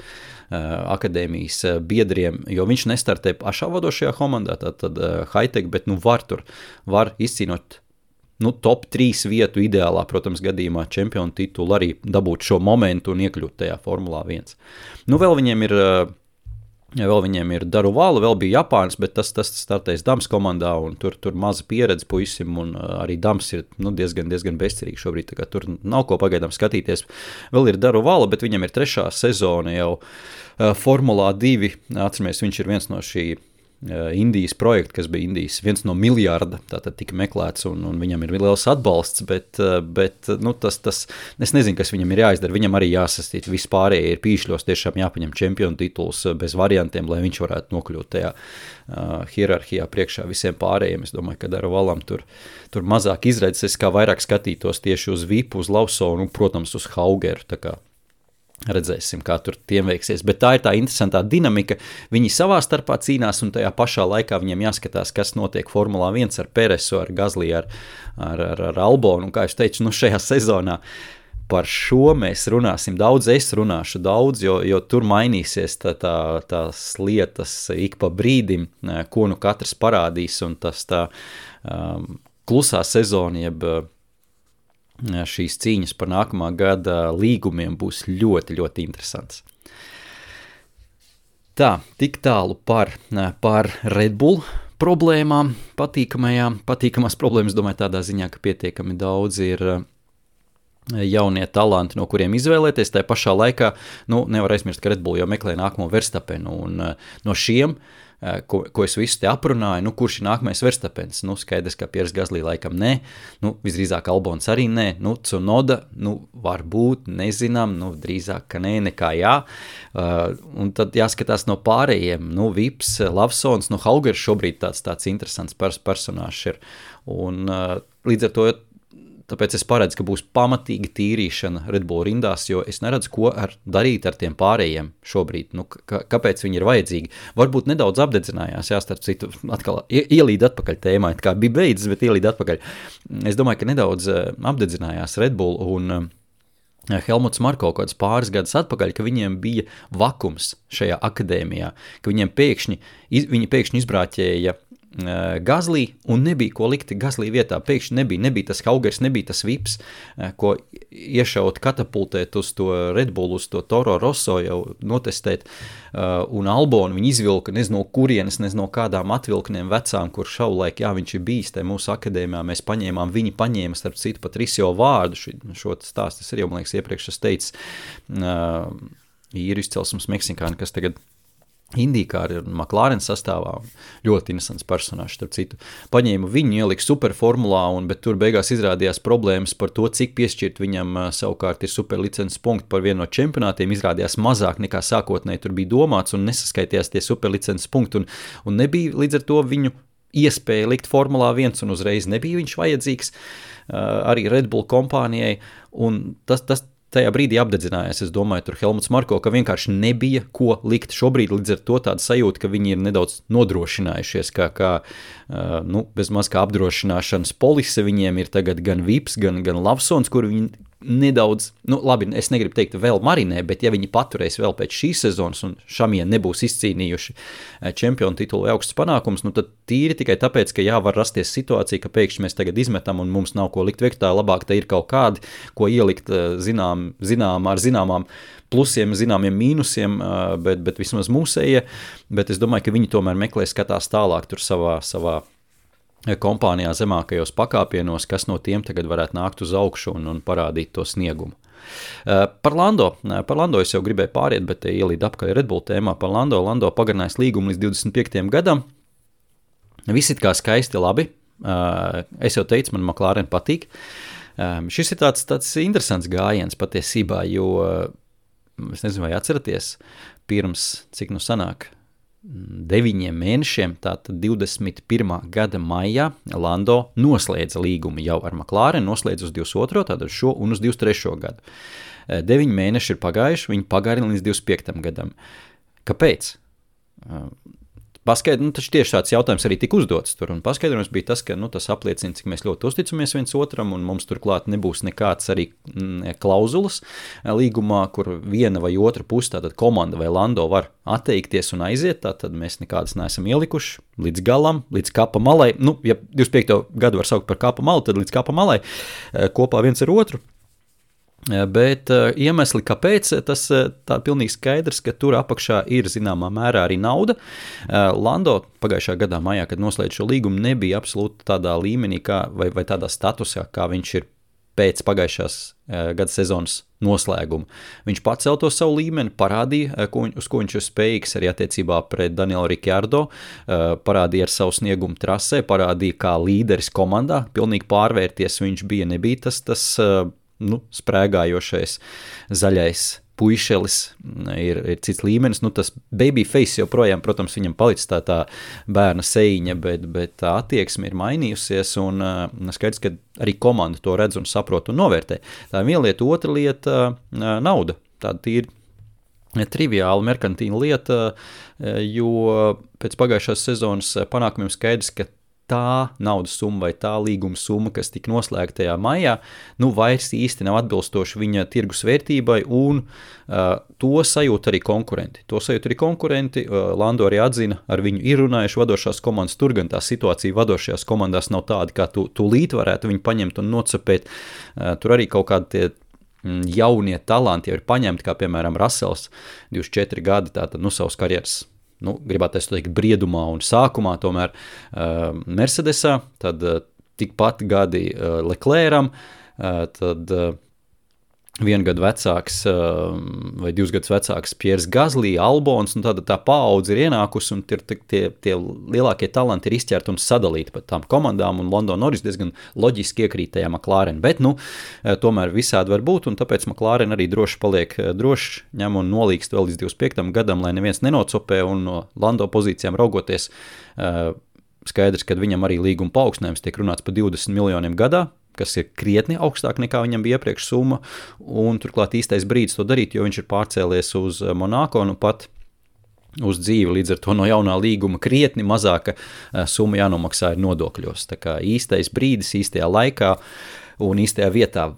A: akadēmijas biedriem, jo viņš nestartē pašā vadošajā komandā, tad high-tech, bet var izcīnot top 3 vietu ideālā, protams, gadījumā čempionu titulu, arī dabūt šo momentu un iekļūt tajā Formulā 1. Vēl viņiem ir Daruvala, vēl bija Japāns, bet tas startēs Dams komandā, un tur maza pieredze puisim, un arī Dams ir diezgan bezcerīgi šobrīd, tā kā tur nav ko pagaidām skatīties. Vēl ir Daruvala, bet viņam ir 3. sezona jau Formulā 2, atceramies, viņš ir viens no šī Indijas projekta, kas bija Indijas viens no miljārda, tātad tika meklēts, un viņam ir liels atbalsts, bet tas, es nezinu, kas viņam ir jāizdara, viņam arī jāsastīt, vispārējie ir pīšļos, tiešām jāpaņem čempionu tituls bez variantiem, lai viņš varētu nokļūt tajā hierarhijā priekšā visiem pārējiem. Es domāju, ka Daruvalam tur mazāk izredzes, es kā vairāk skatītos tieši uz Vipu, uz Lawsonu un, protams, uz Haugeru, tā kā redzēsim, kā tur tiem veiksies, bet tā ir tā interesantā dinamika, viņi savā starpā cīnās un tajā pašā laikā viņiem jāskatās, kas notiek Formulā 1 ar Peresu, ar Gasly, ar Albonu, un kā es teicu, šajā sezonā par šo mēs runāsim daudz, es runāšu daudz, jo tur mainīsies tās lietas ik pa brīdim, ko katrs parādīs, un tas tā klusā sezona, jeb šīs cīņas par nākamā gada līgumiem būs ļoti, ļoti interesants. Tā, tik tālu par Red Bull problēmām, patīkamās problēmas, domāju, tādā ziņā, ka pietiekami daudz ir jaunie talanti, no kuriem izvēlēties. Tā pašā laikā, nevar aizmirst, ka Red Bull jau meklē nākamo Verstappenu, un no šiem ko es visu te aprunāju, kurš ir nākamais Verstappens, skaidrs, ka Pierre Gasly laikam nē, visdrīzāk Albons arī nē, Tsunoda, varbūt, nezinām, drīzāk, ka nē, nekā jā, un tad jāskatās no pārējiem, Vips, Lawsons, Haugers šobrīd tāds interesants personāžs ir, un līdz ar to tāpēc es paredzu, ka būs pamatīga tīrīšana Red Bull rindās, jo es neredzu, ko darīt ar tiem pārējiem šobrīd. Kāpēc viņi ir vajadzīgi? Varbūt nedaudz apdedzinājās, starp citu, atkal ielīd atpakaļ tēmā, kā bija beidzis, bet ielīd atpakaļ. Es domāju, ka nedaudz apdedzinājās Red Bull un Helmuts Marko kaut kāds pāris gadus atpakaļ, ka viņiem bija vakums šajā akadēmijā, ka viņi pēkšņi izbrāķēja Gasly un nebija ko likt Gasly vietā. Pēkšņi nebija tas Haugers, nebija tas Vips, ko iešaut, katapultēt uz to Red Bull, uz to Toro Rosso jau notestēt, un Albonu viņi izvilka, nezinu, kurienes, nezinu, kādām atvilkniem vecām, kur šaulaik, viņš ir bijis te mūsu akadēmijā, mēs paņēmām, viņi paņēma, starp citu, pat Risio vārdu, šo stāstu, es arī, man liekas, iepriekš es teicu, īru izcelsmes meksikāni, kas tagad Indīkāri un McLaren sastāvā, ļoti interesants personāžs, starp citu. Paņēma viņu, ielika superformulā, bet tur beigās izrādījās problēmas par to, cik piešķirt viņam savukārt ir superlicences punkti par vienu no čempionātiem, izrādījās mazāk nekā sākotnēji tur bija domāts un nesaskaitījās tie superlicences punkti un nebija līdz ar to viņu iespēja likt Formulā 1 un uzreiz nebija viņš vajadzīgs arī Red Bull kompānijai un tas tajā brīdī apdedzinājās, es domāju, tur Helmuts Marko, ka vienkārši nebija ko likt. Šobrīd līdz ar to tāda sajūta, ka viņi ir nedaudz nodrošinājušies, kā bez maz kā apdrošināšanas polise viņiem ir tagad gan Vips, gan Lawsons, kur viņi nedaudz, labi, es negribu teikt vēl marinē, bet ja viņi paturēs vēl pēc šīs sezonas un šamie nebūs izcīnījuši čempionu titulu vai augstus panākumus, tad tīri tikai tāpēc, ka var rasties situācija, ka pēkšņi mēs tagad izmetam un mums nav ko likt viektā, labāk te ir kaut kādi, ko ielikt ar zināmām plusiem, zināmiem mīnusiem, bet vismaz mūsējie, bet es domāju, ka viņi tomēr meklē, skatās tālāk tur savā kompānijā zemākajos pakāpienos, kas no tiem tagad varētu nākt uz augšu un parādīt to sniegumu. Par Lando es jau gribēju pāriet, bet ielīd apkaļ Red Bull tēmā par Lando pagarinājis līgumu līdz 25. gadam. Viss it kā skaisti labi. Es jau teicu, man McLaren patīk. Šis ir tāds interesants gājiens patiesībā, jo, es nezinu, vai atceraties, pirms, cik sanāk, 9 mēnešiem, tātad 21. gada maijā, Lando noslēdza līgumu jau ar McLaren, noslēdza uz 22. tātad šo un uz 23. gadu. 9 mēneši ir pagājuši, viņi pagarina līdz 25. gadam. Kāpēc? paskaidrojums, taču tieši tāds jautājums arī tika uzdots tur, un paskaidrojums bija tas, ka tas apliecina, cik mēs ļoti uzticamies viens otram, un mums turklāt nebūs nekāds arī klauzulas līgumā, kur viena vai otra puse, tātad komanda vai Lando var atteikties un aiziet, tātad mēs nekādas neesam ielikuši līdz galam, līdz kapa malai, ja 25. gadu var saukt par kapa malu, tad līdz kapa malai kopā viens ar otru. Bet iemesli, kāpēc, tas tā pilnīgi skaidrs, ka tur apakšā ir zināmā mērā arī nauda. Lando pagājušā gadā maijā, kad noslēdz šo līgumu, nebija absolūti tādā līmenī vai tādā statusā, kā viņš ir pēc pagājušās gada sezonas noslēguma. Viņš pacēl to savu līmeni, parādīja, uz ko viņš ir spējīgs arī attiecībā pret Danielu Ricciardo, parādīja ar savu sniegumu trasē, parādīja kā līderis komandā, pilnīgi pārvērties viņš nebija tas sprēgājošais zaļais puišelis, ir cits līmenis, tas babyface joprojām, protams, viņam palicis tā bērna sejiņa, bet tā attieksme ir mainījusies, un skaidrs, ka arī komanda to redz un saprot un novērtē. Tā ir viena lieta, otra lieta nauda, tāda tīri triviāla merkantīna lieta, jo pēc pagājušās sezonas panākumiem skaidrs, ka tā naudas summa vai tā līguma summa, kas tika noslēgta tajā maijā, vairs īsti nav atbilstoši viņa tirgus vērtībai, un to sajūt arī konkurenti. Lando arī atzina, ar viņu ir runājuši vadošās komandas, tur gan tā situācija vadošajās komandās nav tāda, kā tūlīt varētu viņu paņemt un nocapēt. Tur arī kaut kādi tie jaunie talanti jau ir paņemti, kā piemēram Russells, 24 gadi, tātad savas karjeras gribētu teikt briedumā un sākumā tomēr Mercedesā, tad tikpat gadi Leclercam, tad 1 gadu vecāks vai 2 gadus vecāks Pierre Gasly, Albons, un tāda tā paudze ir ienākusi, un tie lielākie talanti ir izķerti un sadalīti pat tām komandām, un Lando Norris diezgan loģiski iekrīt tajā McLaren, bet tomēr visādi var būt, un tāpēc McLaren arī droši paliek ņem un nolīgst vēl līdz 25. gadam, lai neviens nenocopē, un no Lando pozīcijām raugoties skaidrs, ka viņam arī līguma paaugstinājums tiek runāts par 20 miljoniem gadā, kas ir krietni augstāk nekā viņam bija iepriekš summa, un turklāt īstais brīdis to darīt, jo viņš ir pārcēlies uz Monako, pat uz dzīvi, līdz ar to no jaunā līguma krietni mazāka summa jānomaksā ir nodokļos. Tā kā īstais brīdis, īstajā laikā un īstajā vietā.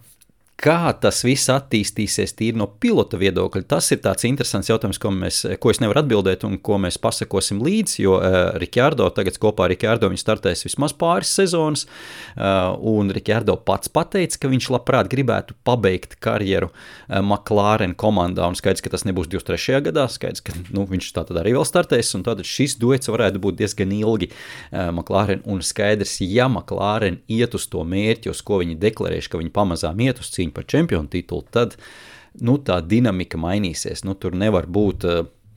A: Kā tas viss attīstīsies tīri no pilota viedokļa, tas ir tāds interesants jautājums, ko es nevaru atbildēt un ko mēs pasakosim līdzi, jo Ricciardo, tagad kopā ar Ricciardo viņš startēs vismaz pāris sezonas, un Ricciardo pats pateica, ka viņš labprāt gribētu pabeigt karjeru McLaren komandā, un skaidrs, ka tas nebūs 23. gadā, skaidrs, ka viņš tātad arī vēl startēs, un tātad šis duets varētu būt diezgan ilgi McLaren, un skaidrs, ja McLaren iet uz to mērķi, uz ko viņi deklarējuši, ka viņi pamazām iet uz cīņu par čempionu titulu, tad tā dinamika mainīsies. Tur nevar būt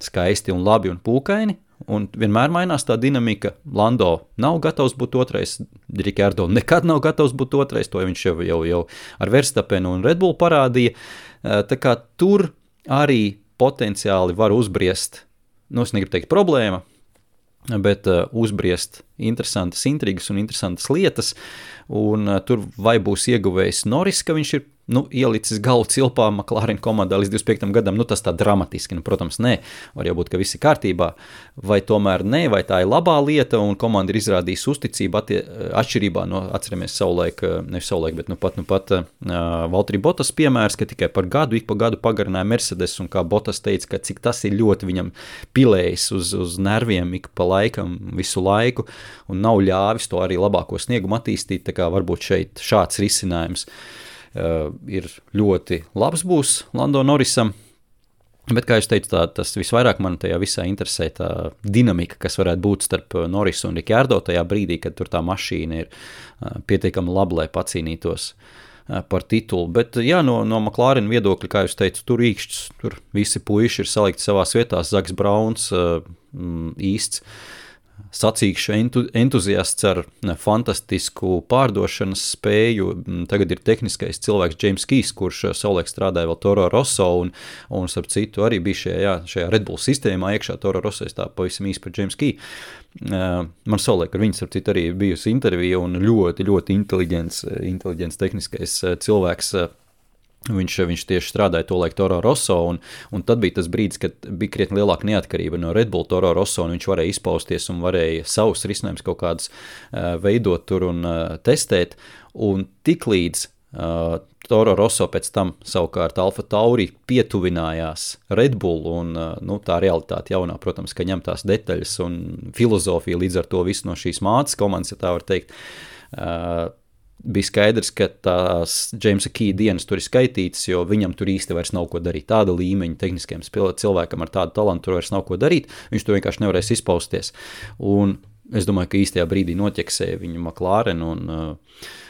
A: skaisti un labi un pūkaini, un vienmēr mainās tā dinamika. Lando nav gatavs būt otrais, Ricciardo nekad nav gatavs būt otrais, to viņš jau ar Verstappenu un Red Bull parādīja. Tā kā tur arī potenciāli var uzbriest, es negribu teikt problēma, bet uzbriest interesantas intrigas un interesantas lietas, un tur vai būs ieguvējis Norris, ka viņš ir ielicis galvu cilpā McLaren komandā līdz 25. gadam, tas tā dramatiski, protams, nē, var jau būt, ka viss ir kārtībā, vai tomēr nē, vai tā ir labā lieta, un komanda ir izrādījusi uzticību atšķirībā no, atceramies bet pat Valtteri Bottas piemērs, ka tikai par gadu, ik pa gadu pagarināja Mercedes, un kā Bottas teica, ka cik tas ir ļoti viņam pilējis uz nerviem ik pa laikam, visu laiku, un nav ļāvis to arī labāko sniegumu attīstīt, tā kā varbūt šeit šāds risinājums ir ļoti labs būs Lando Norrisam, bet, kā es teicu, tas visvairāk man tajā visā interesē tā dinamika, kas varētu būt starp Norrisu un Ricciardo tajā brīdī, kad tur tā mašīna ir pietiekami laba, lai pacīnītos par titulu, bet jā, no McLaren viedokļa, kā jūs teicu, tur īkšķis, tur visi puiši ir salikti savās vietās, Zaks Brauns īsts sacīkšu entuziasts ar fantastisku pārdošanas spēju. Tagad ir tehniskais cilvēks James Keys, kurš savulaik strādāja vēl Toro Rosso un starp citu arī bija šajā Red Bull sistēmā iekšā Toro Rosso, es tā pavisam īsti par James Key. Man savulaik ar viņu starp citu arī bijusi intervija un ļoti, ļoti inteliģents tehniskais cilvēks Viņš tieši strādāja to laiku Toro Rosso, un tad bija tas brīdis, kad bija krietni lielāka neatkarība no Red Bull Toro Rosso, un viņš varēja izpausties un varēja savus risinājumus kaut kādus veidot tur un testēt, un tiklīdz Toro Rosso pēc tam savukārt Alfa Tauri pietuvinājās Red Bull, un tā realitāte jaunā, protams, ka ņem tās detaļas un filozofija līdz ar to visu no šīs mātes komandas, ja tā var teikt, bija skaidrs, ka tās Jamesa Key dienas tur ir skaitītas, jo viņam tur īsti vairs nav ko darīt. Tāda līmeņa tehniskiem cilvēkam ar tādu talantu tur vairs nav ko darīt, viņš tur vienkārši nevarēs izpausties. Un es domāju, ka īstajā brīdī noķeksēja viņu McLaren, un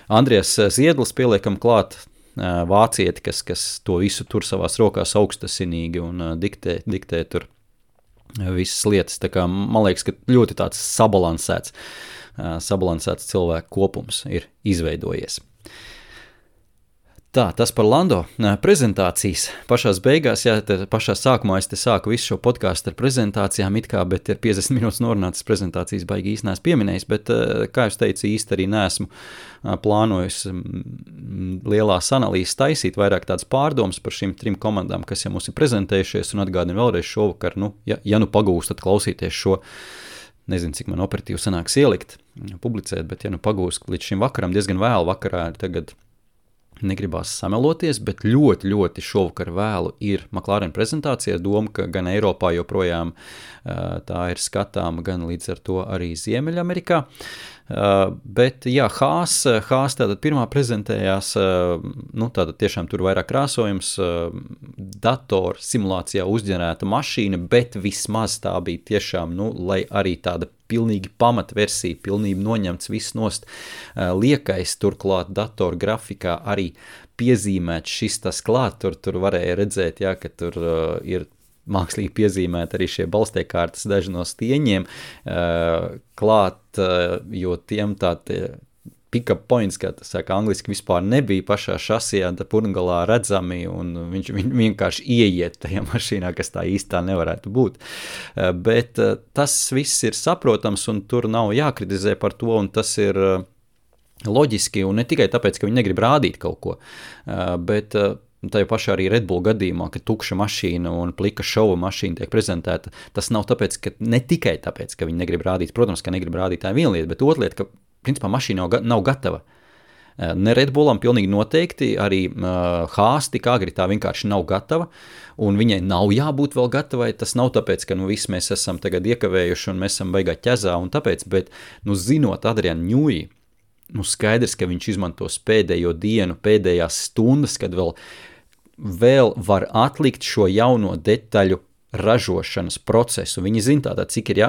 A: Andrijas Ziedlis pieliekam klāt vācieti, kas to visu tur savās rokās augstasinīgi un diktē tur visas lietas. Tā kā man liekas, ka ļoti tāds sabalansēts cilvēku kopums ir izveidojies. Tā, tas par Lando. Prezentācijas pašās beigās, pašā sākumā es te sāku visu šo podcastu ar prezentācijām bet ir 50 minūtes norunātas prezentācijas baigi īsti neesmu pieminējis, bet, kā jūs teicu, īsti arī neesmu plānojis lielās analīzes taisīt, vairāk tādas pārdomas par šīm 3 komandām, kas jau mums ir prezentējušies, un atgādinu vēlreiz šovakar, ja pagūstat klausīties šo, nezinu, cik man operatīvi sanāks ielikt, publicēt, bet ja pagūst līdz šim vakaram, diezgan vēlu vakarā, tagad negribās sameloties, bet ļoti, ļoti šovakar vēlu ir McLaren prezentācija, doma, ka gan Eiropā joprojām tā ir skatāma, gan līdz ar to arī Ziemeļamerikā. Bet jā, Haas tātad pirmā prezentējās, tātad tiešām tur vairāk krāsojums, dator simulācijā uzģenerēta mašīna, bet vismaz tā bija tiešām, lai arī tāda pilnīgi pamatversija, pilnīgi noņemts viss nost, liekais turklāt dator grafikā arī piezīmēts šis tas klāt, tur varēja redzēt, jā, ka tur ir mākslīgi piezīmēt arī šie balstiekārtas daži no stieņiem klāt, jo tiem pick-up points, kā tas saka angliski, vispār nebija pašā šasijā, purngalā redzami, un viņš vienkārši ieiet tajā mašīnā, kas tā īstā nevarētu būt. Bet tas viss ir saprotams, un tur nav jākritizē par to, un tas ir loģiski, un ne tikai tāpēc, ka viņi negrib rādīt kaut ko, bet tajā pašā arī Red Bull gadījumā, ka tukša mašīna un plika šova mašīna tiek prezentēta, tas nav tāpēc, ka ne tikai tāpēc, ka viņi negrib rādīt, protams, ka negrib rādīt tā viena lieta, bet otra lieta, ka principā mašīna nav gatava. Ne Red Bullam pilnīgi noteikti, arī Haas tik agri tā vienkārši nav gatava, un viņai nav jābūt vēl gatavai, tas nav tāpēc, ka visi mēs esam tagad iekavējuši un mēs esam baigā ķezā un tāpēc, bet, zinot Adrianu Ņūji, skaidrs, ka viņš izmantos pēdējo dienu, pēdējās stundas, kad vēl var atlikt šo jauno detaļu ražošanas procesu. Viņi zina tātad, cik ir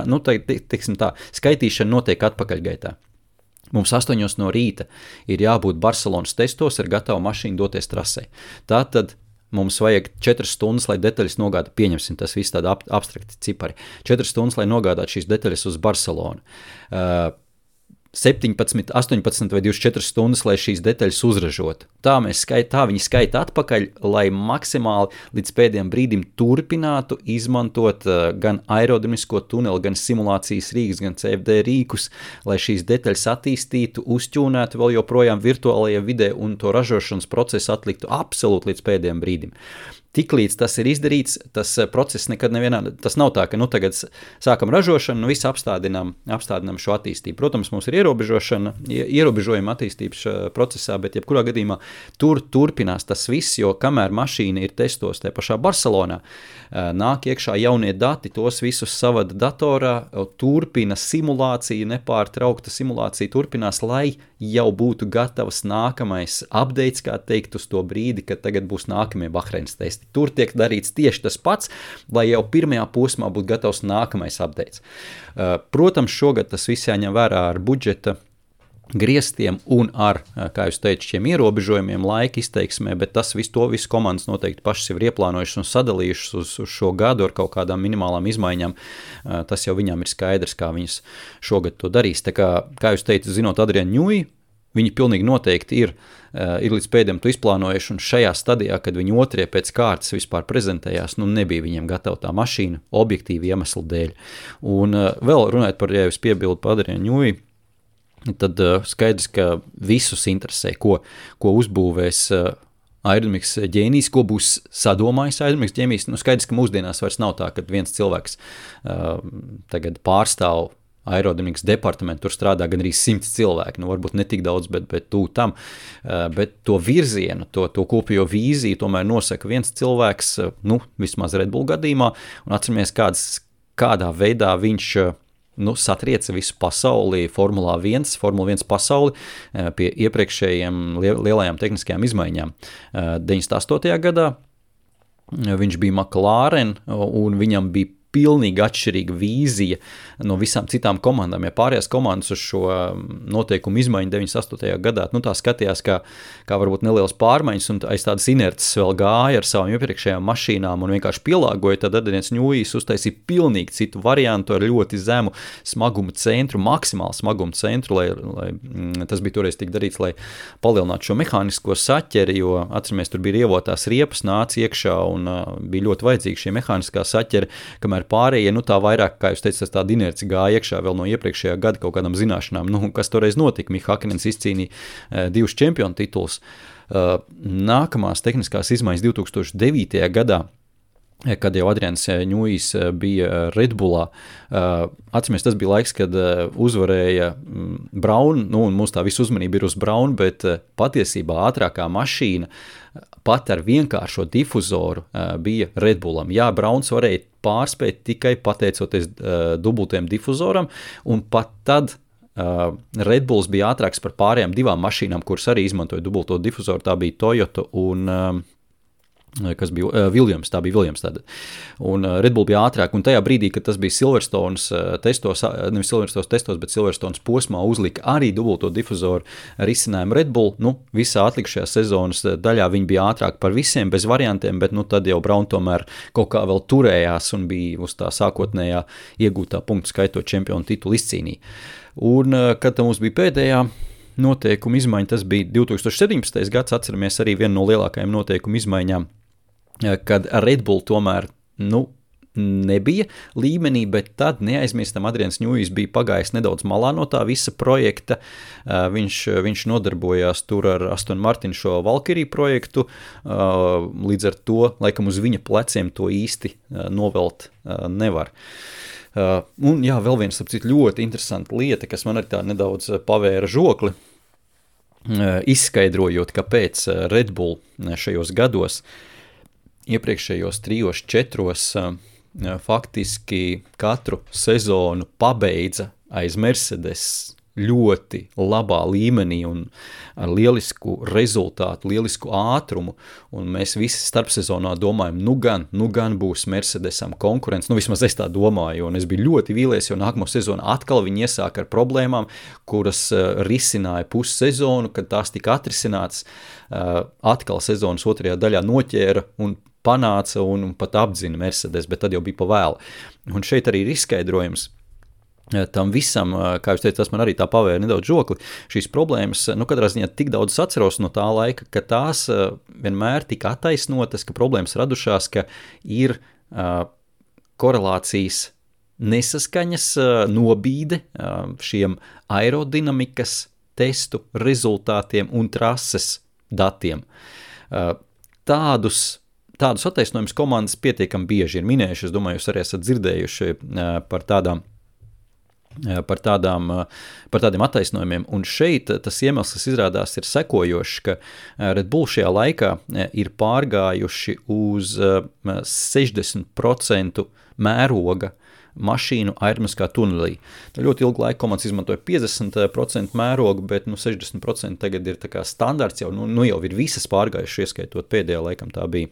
A: skaitīšana notiek atpakaļgaitā. Mums 8 no rīta ir jābūt Barcelonas testos ar gatavu mašīnu doties trasē. Tātad mums vajag 4 stundas, lai detaļas nogādātu, pieņemsim, tas viss tāda abstrakti cipari, 4 stundas, lai nogādātu šīs detaļas uz Barcelonu. 17, 18 vai 24 stundas, lai šīs detaļas uzražotu. Tā viņi skaita atpakaļ, lai maksimāli līdz pēdējiem brīdim turpinātu izmantot gan aerodinamisko tuneli, gan simulācijas rīkus, gan CFD rīkus, lai šīs detaļas attīstītu, uzķūnētu vēl joprojām virtuālajā vidē un to ražošanas procesu atliktu absolūti līdz pēdējiem brīdim. Tiklīdz tas ir izdarīts, tas process nekad nevienā, tas nav tā, ka tagad sākam ražošanu, visu apstādinām šo attīstību. Protams, mums ir ierobežojumi attīstības procesā, bet jebkurā gadījumā tur turpinās tas viss, jo kamēr mašīna ir testos tajā pašā Barcelonā, nāk iekšā jaunie dati, tos visus savada datorā, turpina simulācija, nepārtraukta simulācija turpinās, lai jau būtu gatavs nākamais updates, kā teikt, uz to brīdi, kad tagad būs nākamie Bahreinas testi. Tur tiek darīts tieši tas pats, lai jau pirmajā posmā būtu gatavs nākamais updates. Protams, šogad tas viss jāņem vērā ar budžeta griestiem un ar, kā jūs teicu, šiem ierobežojumiem laika izteiksmē, bet tas visu komandas noteikti pašas jau ir ieplānojušas un sadalījušas uz šo gadu ar kaut kādām minimālām izmaiņām. Tas jau viņām ir skaidrs, kā viņas šogad to darīs. Tā kā jūs teicu, zinot Adrianu Ņūji, viņi pilnīgi noteikti ir līdz pēdējiem to izplānojuši, un šajā stadijā, kad viņi otrie pēc kārtas vispār prezentējās, nebija viņiem gatava tā mašīna objektīvi iemeslu dēļ. Un vēl runājot par, ja jūs piebildu par Adrianu Ņūji, tad skaidrs, ka visus interesē, ko uzbūvēs aerodinamikas ģēnijs, ko būs sadomājis aerodinamikas ģēnijs. Nu, skaidrs, ka mūsdienās vairs nav tā, ka viens cilvēks tagad pārstāv aerodinamikas departamentu, tur strādā gan arī 100 cilvēki, nu varbūt ne tik daudz, bet tū tam, bet to virzienu, to kopējo vīziju tomēr nosaka viens cilvēks, nu, vismaz Red Bull gadījumā, un atceramies, kādā veidā viņš satrieca visu pasauli, Formula 1 pasauli pie iepriekšējiem lielajām tehniskajām izmaiņām. 98. gadā viņš bija McLaren, un viņam bija pilnīgi atšķirīga vīzija no visām citām komandām. Ja pārējās komandas uz šo noteikumu izmaiņu 98. gadā, nu tā skatījās kā varbūt nelielas pārmaiņas un aiz tādas inerces vēl gāja ar savām iepriekšējām mašīnām un vienkārši pielāgoja, tad Adrians Newijs uztaisīja pilnīgi citu variantu ar ļoti zemu smaguma centru, maksimālu smaguma centru, lai tas bija toreiz tik darīts, lai palielinātu šo mehānisko saķeri, jo atceramies, tur bija rievotās riepas, nāca iekšā un bija ļoti vajadzīga šī mehāniskā saķeri, kamēr pārējie, nu tā vairāk, kā jūs teicat, tāda inerci gāja iekšā vēl no iepriekšējā gada kaut kādām zināšanām, nu, kas toreiz notika. Miha Hakkinen izcīnīja 2 čempionu tituls. Nākamās tehniskās izmaiņas 2009. gadā, kad jau Adrians Newijs bija Red Bullā. Atceramies, tas bija laiks, kad uzvarēja Braun, nu, un mums tā visu uzmanība ir uz Braun, bet patiesībā ātrākā mašīna pat ar vienkāršo difuzoru bija Red Bullam. Jā, Brauns varēja pārspēt tikai pateicoties dubultiem difuzoram, un pat tad Red Bulls bija ātrāks par pārējām 2 mašīnām, kuras arī izmantoja dubulto difuzoru, tā bija Toyota un kas bija Williams, tā bija Williams tāda. Un Red Bull bija ātrāk, un tajā brīdī, kad tas bija Silverstones testos, nevis Silverstones testos, bet Silverstones posmā uzlika arī dubulto difuzoru risinājumu Red Bull, nu, visā atlikušajā sezonas daļā viņi bija ātrāk par visiem, bez variantiem, bet, nu, tad jau Braun tomēr kaut kā vēl turējās un bija uz tā sākotnējā iegūtā punktu skaitot čempionu titulu izcīnīja. Un, kad mums bija pēdējā noteikuma izmaiņa, tas bija 2017. gads, atceramies arī vienu no lielākajām noteikuma izmaiņām, kad Red Bull tomēr, nu, nebija līmenī, bet tad neaizmirstam Adrians Newijs bija pagājis nedaudz malā no tā visa projekta. Viņš nodarbojās tur ar Aston Martin šo Valkyrie projektu, līdz ar to, laikam uz viņa pleciem to īsti novelt nevar. Un jā, vēl viens, apcīt, ļoti interesanta lieta, kas man arī tā nedaudz pavēra žokli, izskaidrojot, kāpēc Red Bull šajos gados, iepriekšējos 3-4 faktiski katru sezonu pabeidza aiz Mercedes ļoti labā līmenī un ar lielisku rezultātu, lielisku ātrumu, un mēs visi starpsezonā domājam, nu gan būs Mercedesam konkurence, nu vismaz es tā domāju, un es biju ļoti vīlies, jo nākamo sezonu atkal viņi iesāka ar problēmām, kuras risināja pussezonu, kad tās tika atrisinātas, atkal sezonas otrajā daļā noķēra un panāca un pat apdzina Mercedes, bet tad jau bija pa vēlu. Un šeit arī ir izskaidrojums tam visam, kā jūs teicat, tas man arī tā pavēra nedaudz žokli, šīs problēmas, nu katrā ziņā tik daudz atceros no tā laika, ka tās vienmēr tika attaisnotas, ka problēmas radušās, ka ir korelācijas nesaskaņas nobīde šiem aerodinamikas testu rezultātiem un trases datiem. Tādus attaisnojumus komandas pietiekami bieži ir minējuši, es domāju, jūs arī esat dzirdējuši par tādiem attaisnojumiem, un šeit tas iemesls, kas izrādās, ir sekojošs, ka Red Bull šajā laikā ir pārgājuši uz 60% mēroga mašīnu aerodinamiskā tunelī. Ļoti ilgu laiku komandas izmantoja 50% mērogu, bet 60% tagad ir tā kā standarts, jau jau ir visas pārgājuši, ieskaitot pēdējā laikam tā bija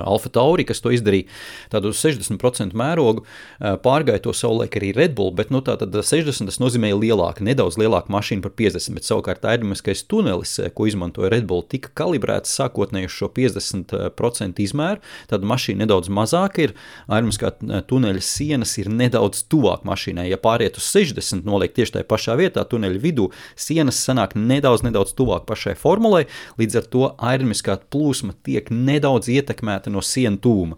A: Alfa Tauri, kas to izdarīja tādu 60% mērogu, pārgāja to savulaik arī Red Bull, bet tātad 60 tas nozīmēja nedaudz lielāku mašīnu par 50, bet savukārt aerodinamiskais tunelis, ko izmantoja Red Bull, tika kalibrēts sākotnēji uz šo 50% izmēru, tad mašīna nedaudz mazāk ir, aerodinamiskā tuneļa sienas ir nedaudz tuvāk mašīnai, ja pāriet uz 60, noliek tieši tajā pašā vietā tuneļa vidū, sienas sanāk nedaudz tuvāk pašai formulai, līdz ar to aerodinamiskā plūsma tiek nedaudz ietekmēta no sienu tūma.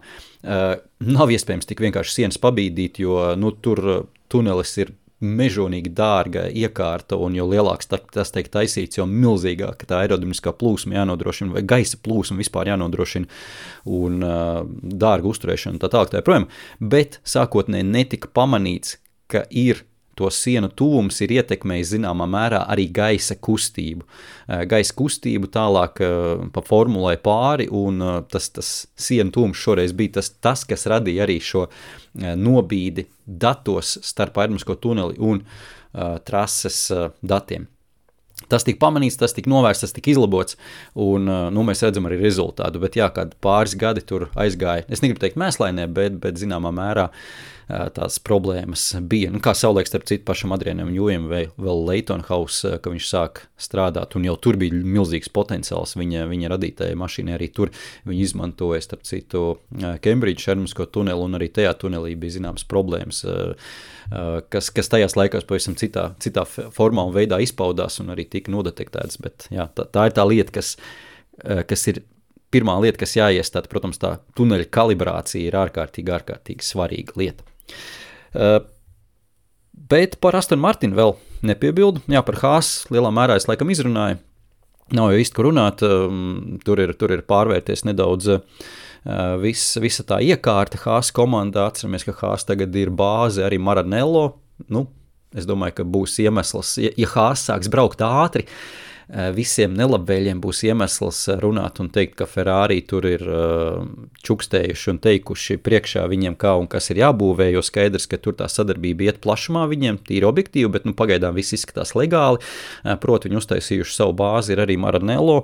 A: Nav iespējams tik vienkārši sienas pabīdīt, jo tur tunelis ir mežonīgi dārga iekārta, un jo lielāks tas tiek taisīts, jo milzīgāk tā aerodinamiskā plūsma jānodrošina, vai gaisa plūsma vispār jānodrošina, un dārga uzturēšana tā tālāk tā joprojām. Bet sākotnēji netika pamanīts, ka to sienu tuvums ir ietekmējis zināmā mērā arī gaisa kustību. Gaisa kustību tālāk pa formulai pāri, un tas sienu tuvums šoreiz bija tas, kas radīja arī šo nobīdi datos starp aerodinamisko tuneli un trases datiem. Tas tika pamanīts, tas tika novērsts, tas tika izlabots, un mēs redzam arī rezultātu, bet jā, kādi pāris gadi tur aizgāja, es negribu teikt mēslainē, bet zināmā mērā tās problēmas bija. Kā savulaik starp citu pašam Adrianam Jūjam vēl Leighton House, ka viņš sāk strādāt, un jau tur bija milzīgs potenciāls viņa radītajai mašīnai, arī tur viņi izmantoja starp citu Cambridge aerodinamisko tuneli, un arī tajā tunelī bija zināmas problēmas, kas tajās laikās pavisam citā formā un veidā izpaudās un arī tika nodetektētas, bet jā, tā ir tā lieta, kas ir pirmā lieta, kas jāiestāda, protams, tā tuneļa kalibrācija ir ārkārtīgi svarīga lieta. Bet par Aston Martin vēl nepiebildu. Jā, par Haas lielā mērā es laikam izrunāju. Nav jau īsti, ko runāt. Tur ir pārvērties nedaudz visa tā iekārta Haas komandā. Atceramies, ka Haas tagad ir bāze arī Maranello. Es domāju, ka būs iemesls, ja Haas sāks braukt ātri, visiem nelabvēļiem būs iemesls runāt un teikt, ka Ferrari tur ir čukstējuši un teikuši priekšā viņiem kā un kas ir jābūvē, jo skaidrs, ka tur tā sadarbība iet plašumā viņiem, tīri objektīvi, bet pagaidām viss izskatās legāli. Proti, viņi uztaisījuši savu bāzi, ir arī Maranello,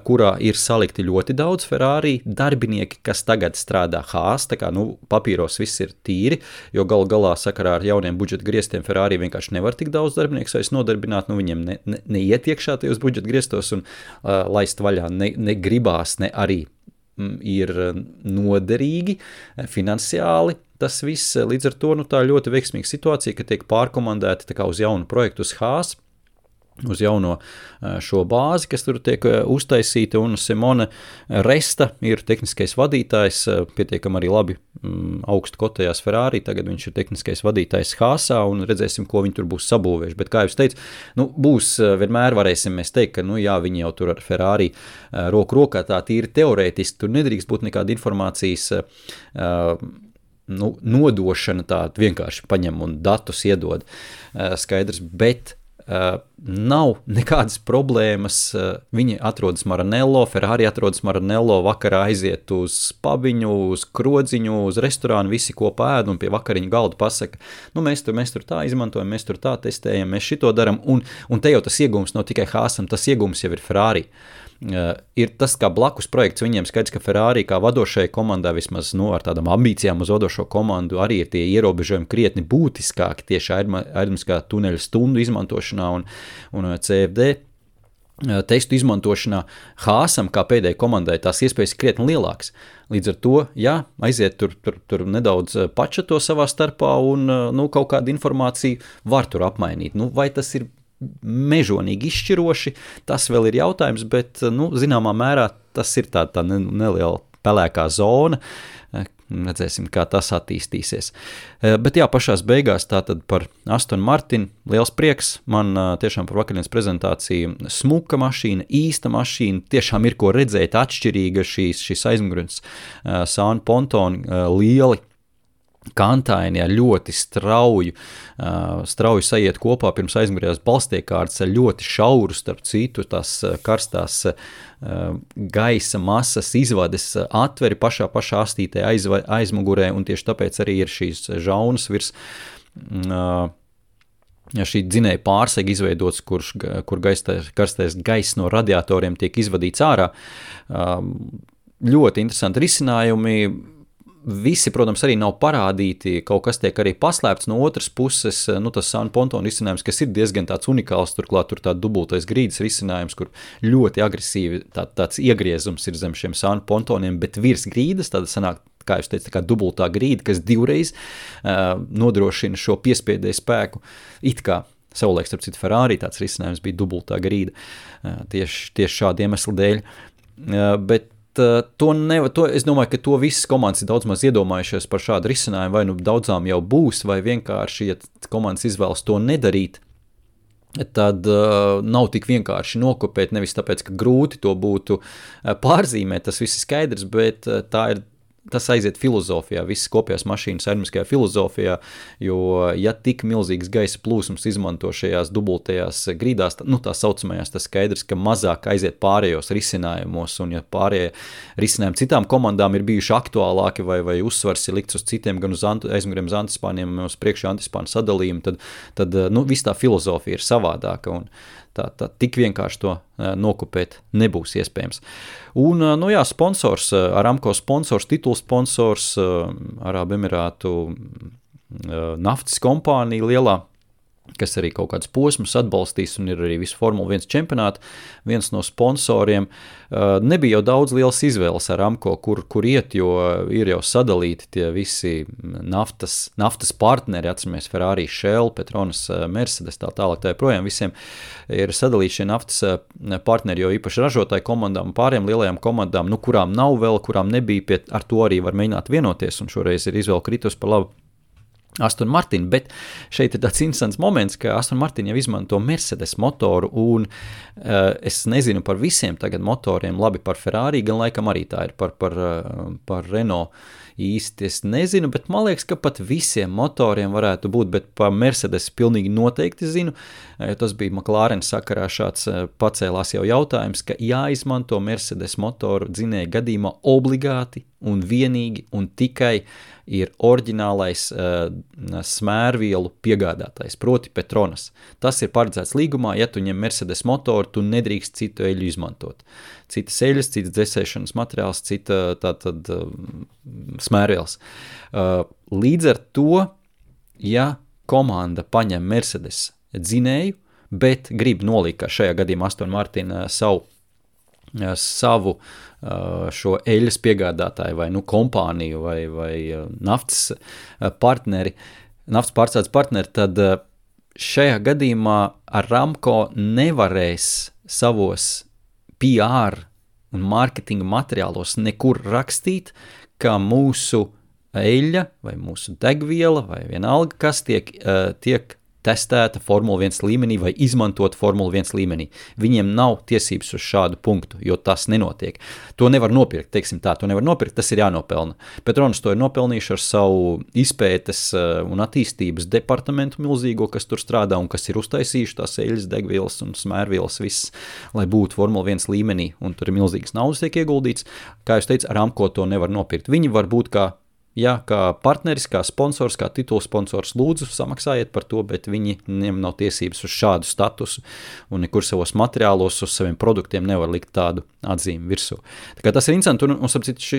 A: kurā ir salikti ļoti daudz Ferrari darbinieki, kas tagad strādā Haas, tā kā papīros viss ir tīri, jo galā sakarā ar jauniem budžeta griestiem Ferrari vienkārši nevar tik daudz darbinieks vairs nodarbināt, viņiem neiet iekšā uz budžeta griestos un laist vaļā negribās, ne arī ir noderīgi finansiāli. Tas viss līdz ar to tā ļoti veiksmīga situācija, ka tiek pārkomandēti tā kā uz jaunu projektu uz Haas, uz jauno šo bāzi, kas tur tiek uztaisīta, un Simone Resta ir tehniskais vadītājs, pietiekam arī labi augstu kotējās Ferrari, tagad viņš ir tehniskais vadītājs Haasā, un redzēsim, ko viņi tur būs sabūvējuši, bet kā jau es teicu, būs, vienmēr varēsim mēs teikt, ka, jā, viņi jau tur ar Ferrari roku rokā tā tīri teorētiski, tur nedrīkst būt nekāda informācijas nodošana, tā vienkārši paņem un datus iedod, skaidrs, bet nav nekādas problēmas, viņi atrodas Maranello, Ferrari atrodas Maranello, vakarā aiziet uz pabiņu, uz krodziņu, uz restorānu, visi kopā ēd un pie vakariņu galda pasaka, mēs tur tā izmantojam, mēs tur tā testējam, mēs šito daram, un te jau tas iegums nav tikai Haasam, tas iegums jau ir Ferrari. Ir tas kā blakus projekts viņiem, skaidrs, ka Ferrari kā vadošai komandai vismaz ar tādām ambīcijām uz vadošo komandu arī ir tie ierobežojumi krietni būtiskāki tieši aerodinamiskā tuneļa stundu izmantošanā un CFD testu izmantošanā. Haasam kā pēdējai komandai tās iespējas ir krietni lielākas. Līdz ar to, jā, aiziet tur nedaudz pačato savā starpā un kaut kādu informāciju var tur apmainīt. Vai tas ir mežonīgi izšķiroši, tas vēl ir jautājums, bet, zināmā mērā tas ir tā neliela pelēkā zona, redzēsim, kā tas attīstīsies. Bet jā, pašās beigās tātad par Aston Martin, liels prieks, man tiešām par vakardienas prezentāciju smuka mašīna, īsta mašīna, tiešām ir ko redzēt, atšķirīga šīs aizmugurnes sānu pontoni, lieli, kantaini ar ļoti strauju sajiet kopā pirms aizmugurējās balstiekārtas ar ļoti šauru starp citu tās karstās gaisa masas izvades atveri pašā astītē aizmugurē, un tieši tāpēc arī ir šīs žaunas virs šī dzinēja pārsega izveidots, kur karstais gaiss no radiatoriem tiek izvadīts ārā. Ļoti interesanti risinājumi. Visi, protams, arī nav parādīti, kaut kas tiek arī paslēpts no otras puses, tas sānu pontonu risinājums, kas ir diezgan tāds unikāls, turklāt tur tā dubultais grīdas risinājums, kur ļoti agresīvi tāds iegriezums ir zem šiem sānu pontoniem, bet virs grīdas, tāda sanāk, kā jūs teicat, tā kā dubultā grīda, kas divreiz nodrošina šo piespiedēju spēku, it kā savulaik, starp citu, Ferrari tāds risinājums bija dubultā grīda, tieši šādu iemeslu dēļ, bet es domāju, ka to visas komandas ir daudz maz iedomājušies par šādu risinājumu, vai nu daudzām jau būs, vai vienkārši, ja komandas izvēlas to nedarīt, tad nav tik vienkārši nokopēt, nevis tāpēc, ka grūti to būtu pārzīmēt, tas viss ir skaidrs, bet tas aiziet filozofijā, visas kopējās mašīnas aerodinamiskajā filozofijā, jo ja tik milzīgas gaisa plūsmas izmanto šajās dubultajās grīdās, tā saucamajās, tas skaidrs, ka mazāk aiziet pārējos risinājumos, un ja pārējie risinājumi citām komandām ir bijuši aktuālāki vai uzsvars ir likts uz citiem, gan uz aizmuguriem uz antispāniem, uz priekšā antispānu sadalījumu, tad viss tā filozofija ir savādāka, un tā tik vienkārši to nokopēt nebūs iespējams. Un, sponsors, Aramco sponsors, titulsponsors, Arābu Emirātu naftas kompānija lielā, kas arī kaut kādus posmus atbalstīs un ir arī visu Formula 1 čempionātu, viens no sponsoriem. Nebija jau daudz lielas izvēles Aramco, kur iet, jo ir jau sadalīti tie visi naftas partneri, atceramies Ferrari, Shell, Petronas, Mercedes, tā tālāk, tā projām visiem ir sadalīti šie naftas partneri, jo īpaši ražotāju komandām, pāriem lielajām komandām, kurām nav vēl, kurām nebija, ar to arī var mēģināt vienoties, un šoreiz ir izvēle kritus par labu Aston Martin, bet šeit ir tāds interesants moments, ka Aston Martin jau izmanto Mercedes motoru, un es nezinu par visiem tagad motoriem, labi par Ferrari, gan laikam arī tā ir par Renault īsti, es nezinu, bet man liekas, ka pat visiem motoriem varētu būt, bet par Mercedes pilnīgi noteikti zinu, jo tas bija McLaren sakarā šāds pacēlās jau jautājums, ka jāizmanto Mercedes motoru dzinēja gadījumā obligāti un vienīgi un tikai ir oriģinālais smērvielu piegādātājs, proti Petronas. Tas ir paredzēts līgumā, ja tu ņem Mercedes motoru, tu nedrīkst citu eļu izmantot. Citas eļas, citas dzesēšanas materiāls, cita tātad smērvielas. Līdz ar to, ja komanda paņem Mercedes dzinēju, bet grib nolikt, kā šajā gadījumā Aston Martin savu šo eļas piegādātāju vai kompāniju vai naftas pārstrādes partneri, tad šajā gadījumā Aramco nevarēs savos PR un mārketinga materiālos nekur rakstīt, ka mūsu eļļa vai mūsu degviela vai vienalga, kas tiek testēta Formula 1 līmenī vai izmantot Formula 1 līmenī. Viņiem nav tiesības uz šādu punktu, jo tas nenotiek. To nevar nopirkt, to nevar nopirkt, tas ir jānopelna. Petronas to ir nopelnījuši ar savu izpētes un attīstības departamentu milzīgo, kas tur strādā un kas ir uztaisījuši tās eļas, degvielas un smērvielas viss, lai būtu Formula 1 līmenī, un tur ir milzīgas naudas tiek ieguldīts. Kā jūs teicu, Aramco to nevar nopirkt. Viņi var būt kā partneris, kā sponsors, kā titulsponsors, lūdzu samaksājiet par to, bet viņiem nav tiesības uz šādu statusu un nekur savos materiālos uz saviem produktiem nevar likt tādu atzīmi virsū. Tā kā tas ir interesanti, un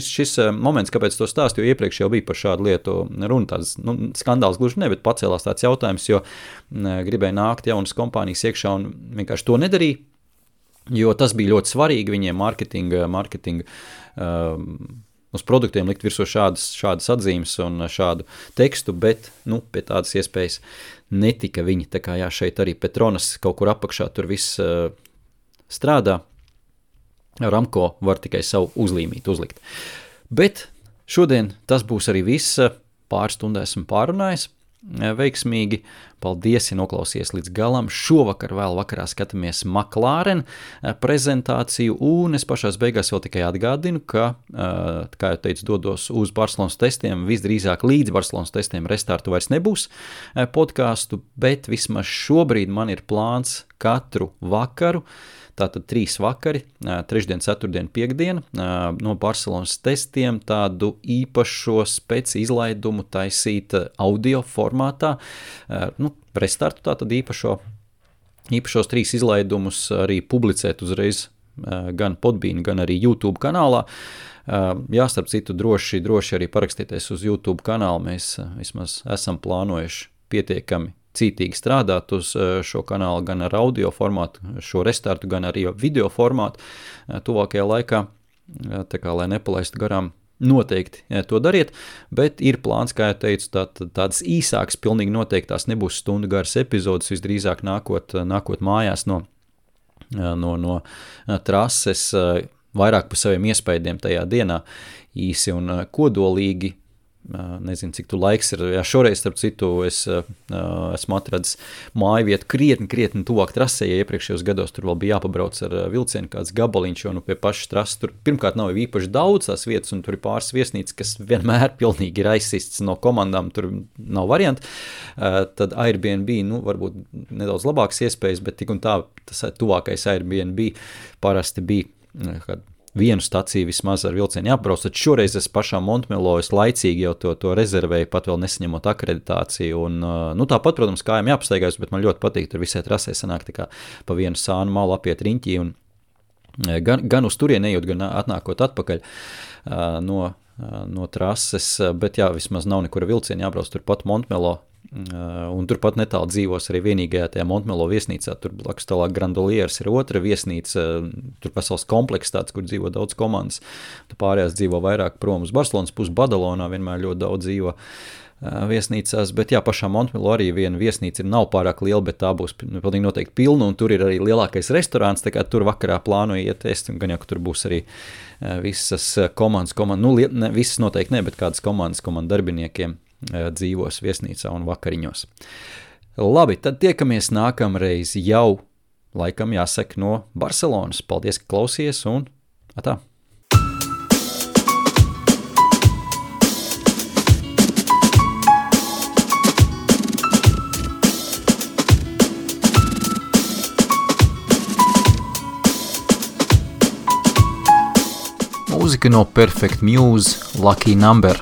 A: šis moments, kāpēc to stāstu, jo iepriekš jau bija par šādu lietu runa, tāds skandāls gluži ne, bet pacēlās tāds jautājums, jo gribēja nākt jaunas kompānijas iekšā un vienkārši to nedarīja, jo tas bija ļoti svarīgi viņiem marketinga uz produktiem likt virsū šādas atzīmes un šādu tekstu, bet, pie tādas iespējas netika viņi. Tā kā šeit arī Petronas kaut kur apakšā tur viss strādā. Aramco var tikai savu uzlīmīt, uzlikt. Bet šodien tas būs arī viss. Pāris stundā esmu pārunājis veiksmīgi. Paldies, ja noklausies līdz galam. Šovakar vēl vakarā skatāmies McLaren prezentāciju, un es pašās beigās vēl tikai atgādinu, ka, kā jau teicu, dodos uz Barcelonas testiem, visdrīzāk līdz Barcelonas testiem restartu vairs nebūs podcastu, bet vismaz šobrīd man ir plāns katru vakaru, tātad 3 vakari, trešdien, ceturtdien, piekdien, no Barcelonas testiem tādu īpašo izlaidumu taisīt audio formātā, restartu tātad īpašos 3 izlaidumus arī publicēt uzreiz gan Podbean, gan arī YouTube kanālā. Starp citu, droši arī parakstieties uz YouTube kanālu, mēs vismaz esam plānojuši pietiekami cītīgi strādāt uz šo kanālu gan ar audio formātu, šo restartu, gan arī video formātu tuvākajā laikā, tā kā, lai nepalaistu garām, noteikti to dariet, bet ir plāns, kā jau teicu, tādas īsākas, pilnīgi noteikti tās nebūs stundu garas epizodes, visdrīzāk nākot mājās no trases, vairāk par saviem iespējiem tajā dienā īsi un kodolīgi. Nezinu, cik tu laiks ir. Jā, šoreiz, starp citu, es esmu atradis māju vietu krietni tuvāk trasē, ja iepriekšējos gados tur vēl bija jāpabrauc ar vilcienu kāds gabaliņš, jo pie pašas trases tur pirmkārt nav īpaši daudz tās vietas, un tur ir pāris viesnīcas, kas vienmēr pilnīgi ir aizsists no komandām, tur nav varianti. Tad Airbnb, varbūt nedaudz labākas iespējas, bet tik un tā, tas tuvākais Airbnb parasti bija vienu staciju vismaz ar vilcienu jāapbrauc, tad šoreiz es pašā Montmelo es laicīgi jau to rezervēju, pat vēl nesaņemot akreditāciju, un tāpat, protams, kājām jāpastaigājas, bet man ļoti patīk, tur visai trasē sanāk tā kā pa vienu sānu malu apiet riņķī, un gan uz turien ejot, gan atnākot atpakaļ no trases, bet jā, vismaz nav nekura vilciena jābrauc turpat Montmelo, un turpat netālu dzīvos arī vienīgajā tajā Montmelo viesnīcā, tur blakus tālāk Grandolieres ir otra viesnīca, tur pasaules kompleks tāds, kur dzīvo daudz komandas, tur pārējās dzīvo vairāk prom uz Barcelonas pusi, Badalonā vienmēr ļoti daudz dzīvo viesnīcās, bet jā, pašā Montmelo arī viena viesnīca nav pārāk liela, bet tā būs pilnīgi noteikti pilna, un tur ir arī lielākais restorāns, tā kā tur vakarā plānoju iet ēst, un gan jau, ka tur būs arī visas komandas, visas noteikti ne, bet kādas komandas darbiniekiem dzīvos viesnīcā un vakariņos. Labi, tad tiekamies nākamreiz jau, laikam jāsaka, no Barcelonas. Paldies, ka klausies, un atā! Mūzika no Perfect Muse, Lucky Number.